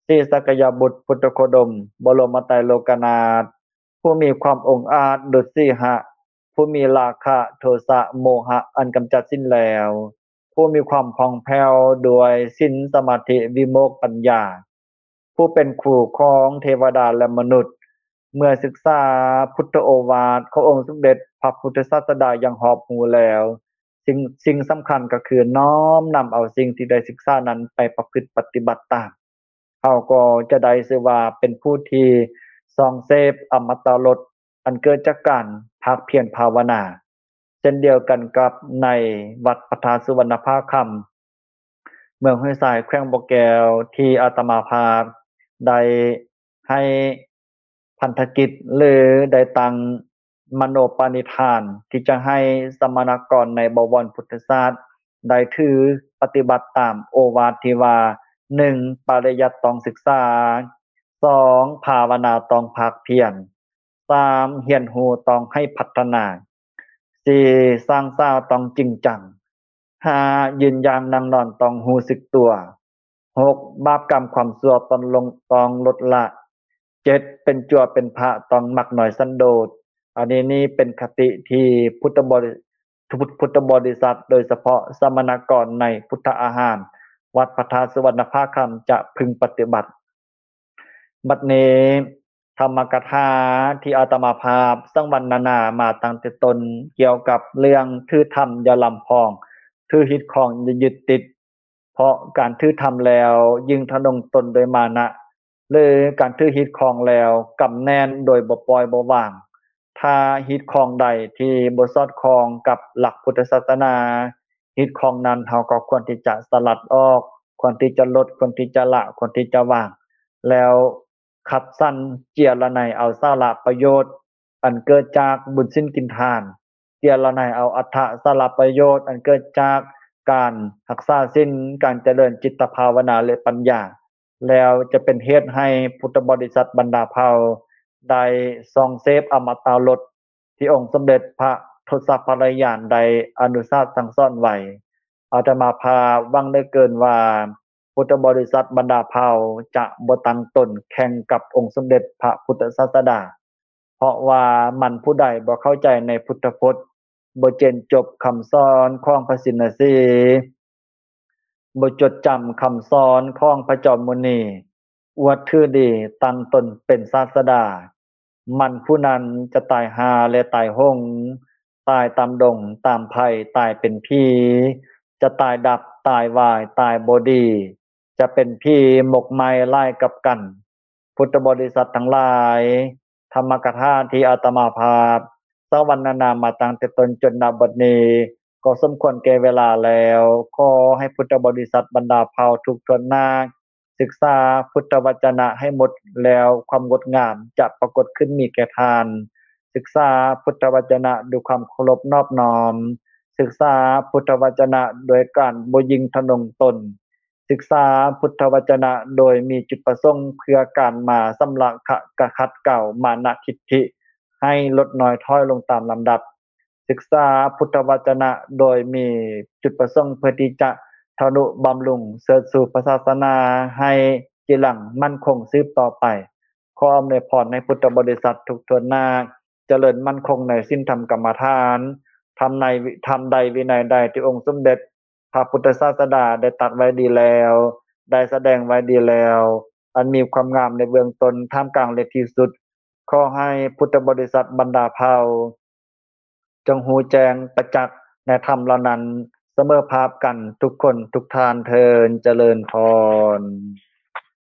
ສີສັກກະຍະບຸດ ພຸດທະໂຄດົມ ບໍລົມມະໄຕໂລກະນາດ ຜູ້ມີຄວາມອົງອາດດຸດສີຫະ ຜູ້ມີລາຄະ ໂທສະ ໂມຫະ ອັນກຳຈັດສິ້ນແລ້ວ, ຜູ້ມີຄວາມຜ່ອງແຜ້ວດ້ວຍສິນ ສະມາທິ ວິໂມກ ປັນຍາ, ຜູ້ເປັນຄູຂອງເທວະດາ ແລະ ມະນຸດ. ເມື່ອສຶກສາພຸດທະໂອວາດຂອງອົງສົມເດັດພະພຸດທະສາສະດາຢ່າງຮອບຮູ້ແລ້ວ, ສິ່ງ ສິ່ງສຳຄັນກໍຄືນ້ອມນຳເອົາສິ່ງທີ່ໄດ້ສຶກສານັ້ນໄປປະພຶດປະຕິບັດຕາມ. ເຮົາກໍຈະໄດ້ຊື່ວ່າເປັນຜູ້ທີ່ສ່ອງເສບອະມະຕະລົດອັນເກີດຈາກການພາກພຽນພາວະນາ, ເຊັ່ນດຽວກັນກັບໃນວັດພະທາດສຸວັນນະພາຄຳ ເມືອງຫ້ວຍຊາຍ ແຂວງບໍ່ແກ້ວ ທີ່ອາດຕະມາພາບໄດ້ໃຫ້ພັນທະກິດ ຫຼື ໄດ້ຕັ້ງມະໂນປະນິທານທີ່ຈະໃຫ້ສະມະນະກອນໃນບໍວອນພຸດທະຊາດໄດ້ຖືປະຕິບັດຕາມໂອວາດທີ່ວ່າ ໜຶ່ງ ປະລິຍັດຕ້ອງສຶກສາ, ສອງ ພາວະນາຕ້ອງພາກພຽນ, ສາມ ຮຽນຮູ້ຕ້ອງໃຫ້ພັດທະນາ, ສີ່ ສ້າງສາຕ້ອງຈິງຈັງ, ຫ້າ ຢືນຢ່າງນັ່ງນອນຕ້ອງຮູ້ສຶກຕົວ, ຫົກ ບາບກຳຄວາມຊົ່ວຕ້ອງລົງ ຕ້ອງລົດລະ, ເຈັດ ເປັນຈົວເປັນພະຕ້ອງມັກນ້ອຍສັນໂດດ. ອັນນີ້ນີ້ເປັນຄະຕິທີ່ພຸດທະບໍລິ ພຸດ ພຸດທະບໍລິສັດ ໂດຍສະເພາະສະມະນະກອນໃນພຸດທະອາຫານ ວັດພະທາດສຸວັນນະພາຄຳ ຈະພຶງປະຕິບັດ. ບັດນີ້ ທຳມະກະຖາທີ່ອາດຕະມາພາບສັງວັນນະນາມາຕັ້ງແຕ່ຕົ້ນ ກ່ຽວກັບເລື່ອງຖືທຳຢ່າລຳພອງ, ຖືຮີດຄອງຢ່າຍຶດຕິດ, ເພາະການຖືທຳແລ້ວຍິ່ງທະນົງຕົນດ້ວຍມານະ ຫຼື ການຖືຮີດຄອງແລ້ວກຳແໜ້ນໂດຍບໍ່ປ່ອຍບໍ່ວາງ. ຖ້າຮີດຄອງໃດທີ່ບໍ່ສອດຄ່ອງກັບຫຼັກພຸດທະສາສະໜາ, ຮີດຄອງນັ້ນເຮົາກໍຄວນທີ່ຈະສະຫຼັດອອກ, ຄວນທີ່ຈະລົດ, ຄວນທີ່ຈະລະ, ຄວນທີ່ຈະວາງ, ແລ້ວຄັດສັນເຈຍລະໄນເອົາສາລະປະໂຫຍດອັນເກີດຈາກບຸນສິນກິນທານ, ເຈຍລະໄນເອົາອັດຖະສາລະປະໂຫຍດອັນເກີດຈາກການຮັກສາສິນ, ການຈະເລີນຈິດຕະພາວະນາ ແລະ ປັນຍາ, ແລ້ວຈະເປັນເຫດໃຫ້ພຸດທະບໍລິສັດບັນດາເຜົ່າໄດ້ສ່ອງເສບອະມະຕະລົດ ທີ່ອົງສົມເດັດພະທົດສະພະລະຍານໄດ້ອະນຸສາດສັ່ງສອນໄວ້. ອາດຕະມາພາບຫວັງເຫຼືອເກີນວ່າ ພຸດທະບໍລິສັດບັນດາເຜົ່າຈະບໍ່ຕັ້ງຕົນແຂ່ງກັບອົງສົມເດັດພະພຸດທະສາສະດາ, ເພາະວ່າມັນຜູ້ໃດບໍ່ເຂົ້າໃຈໃນພຸດທະພົດ, ບໍ່ເຈນຈົບຄຳສອນຂອງພະຊິນນະສີ, ບໍ່ຈົດຈຳຄຳສອນຂອງພະຈອມມຸນີ, ອວດຖືດີຕັ້ງຕົນເປັນສາສະດາ, ມັນຜູ້ນັ້ນຈະຕາຍຫ່າ ແລະ ຕາຍຫົງ, ຕາຍຕາມດົງຕາມໄພ, ຕາຍເປັນຜີ, ຈະຕາຍດັບ, ຕາຍວາຍ, ຕາຍບໍ່ດີ, ຈະເປັນຜີໝົກໄໝ້ຫຼາຍກັບກັນ. ພຸດທະບໍລິສັດທັງຫຼາຍ, ທຳມະກະຖາທີ່ອາດຕະມາພາບສັງວັນນະນາມາຕັ້ງແຕ່ຕົ້ນຈົນນະບັດນີ້ ກໍສົມຄວນແກ່ເວລາແລ້ວ. ຂໍໃຫ້ພຸດທະບໍລິສັດບັນດາເຜົ່າທຸກຖ້ວນໜ້າ ສຶກສາພຸດທະວັດຈະນະໃຫ້ໝົດແລ້ວ ຄວາມງົດງາມຈະປາກົດຂຶ້ນມີແກ່ທ່ານ. ສຶກສາພຸດທະວັດຈະນະດ້ວຍຄວາມເຄົາລົບນອບນ້ອມ, ສຶກສາພຸດທະວັດຈະນະໂດຍການບໍ່ຍິ່ງທະນົງຕົນ, ສຶກສາພຸດທະວັດຈະນະໂດຍມີຈຸດປະສົງເພື່ອການມາຊຳລະ ຂະ ກະຂັດເກົາມານະທິດຖິໃຫ້ລົດນ້ອຍຖອຍລົງຕາມລຳດັບ. ສຶກສາພຸດທະວັດຈະນະໂດຍມີຈຸດປະສົງເພື່ອທີ່ຈະທະນຸບຳລຸງເສີດຊູພະສາສະໜາໃຫ້ຈີລັງໝັ້ນຄົງສືບຕໍ່ໄປ. ຂໍອຳນວຍພອນໃຫ້ພຸດທະບໍລິສັດທຸກຖ້ວນໜ້າ ຈະເລີນໝັ້ນຄົງໃນສິນທຳກຳມະຖານ, ທຳໃນ ທຳໃດວິໄນໃດທີ່ອົງສົມເດັດພະພຸດທະສາສະດາໄດ້ຕັດໄວ້ດີແລ້ວ, ໄດ້ສະແດງໄວ້ດີແລ້ວ, ອັນມີຄວາມງາມໃນເບື້ອງຕົ້ນ, ທ່າມກາງ ແລະ ທີ່ສຸດ. ຂໍໃຫ້ພຸດທະບໍລິສັດບັນດາເຜົ່າ ຈົ່ງຮູ້ແຈ້ງປະຈັກໃນທຳເຫຼົ່ານັ້ນສະເໝີພາບກັນທຸກຄົນທຸກທ່ານເທີ້ນ. ຈະເລີນພອນ.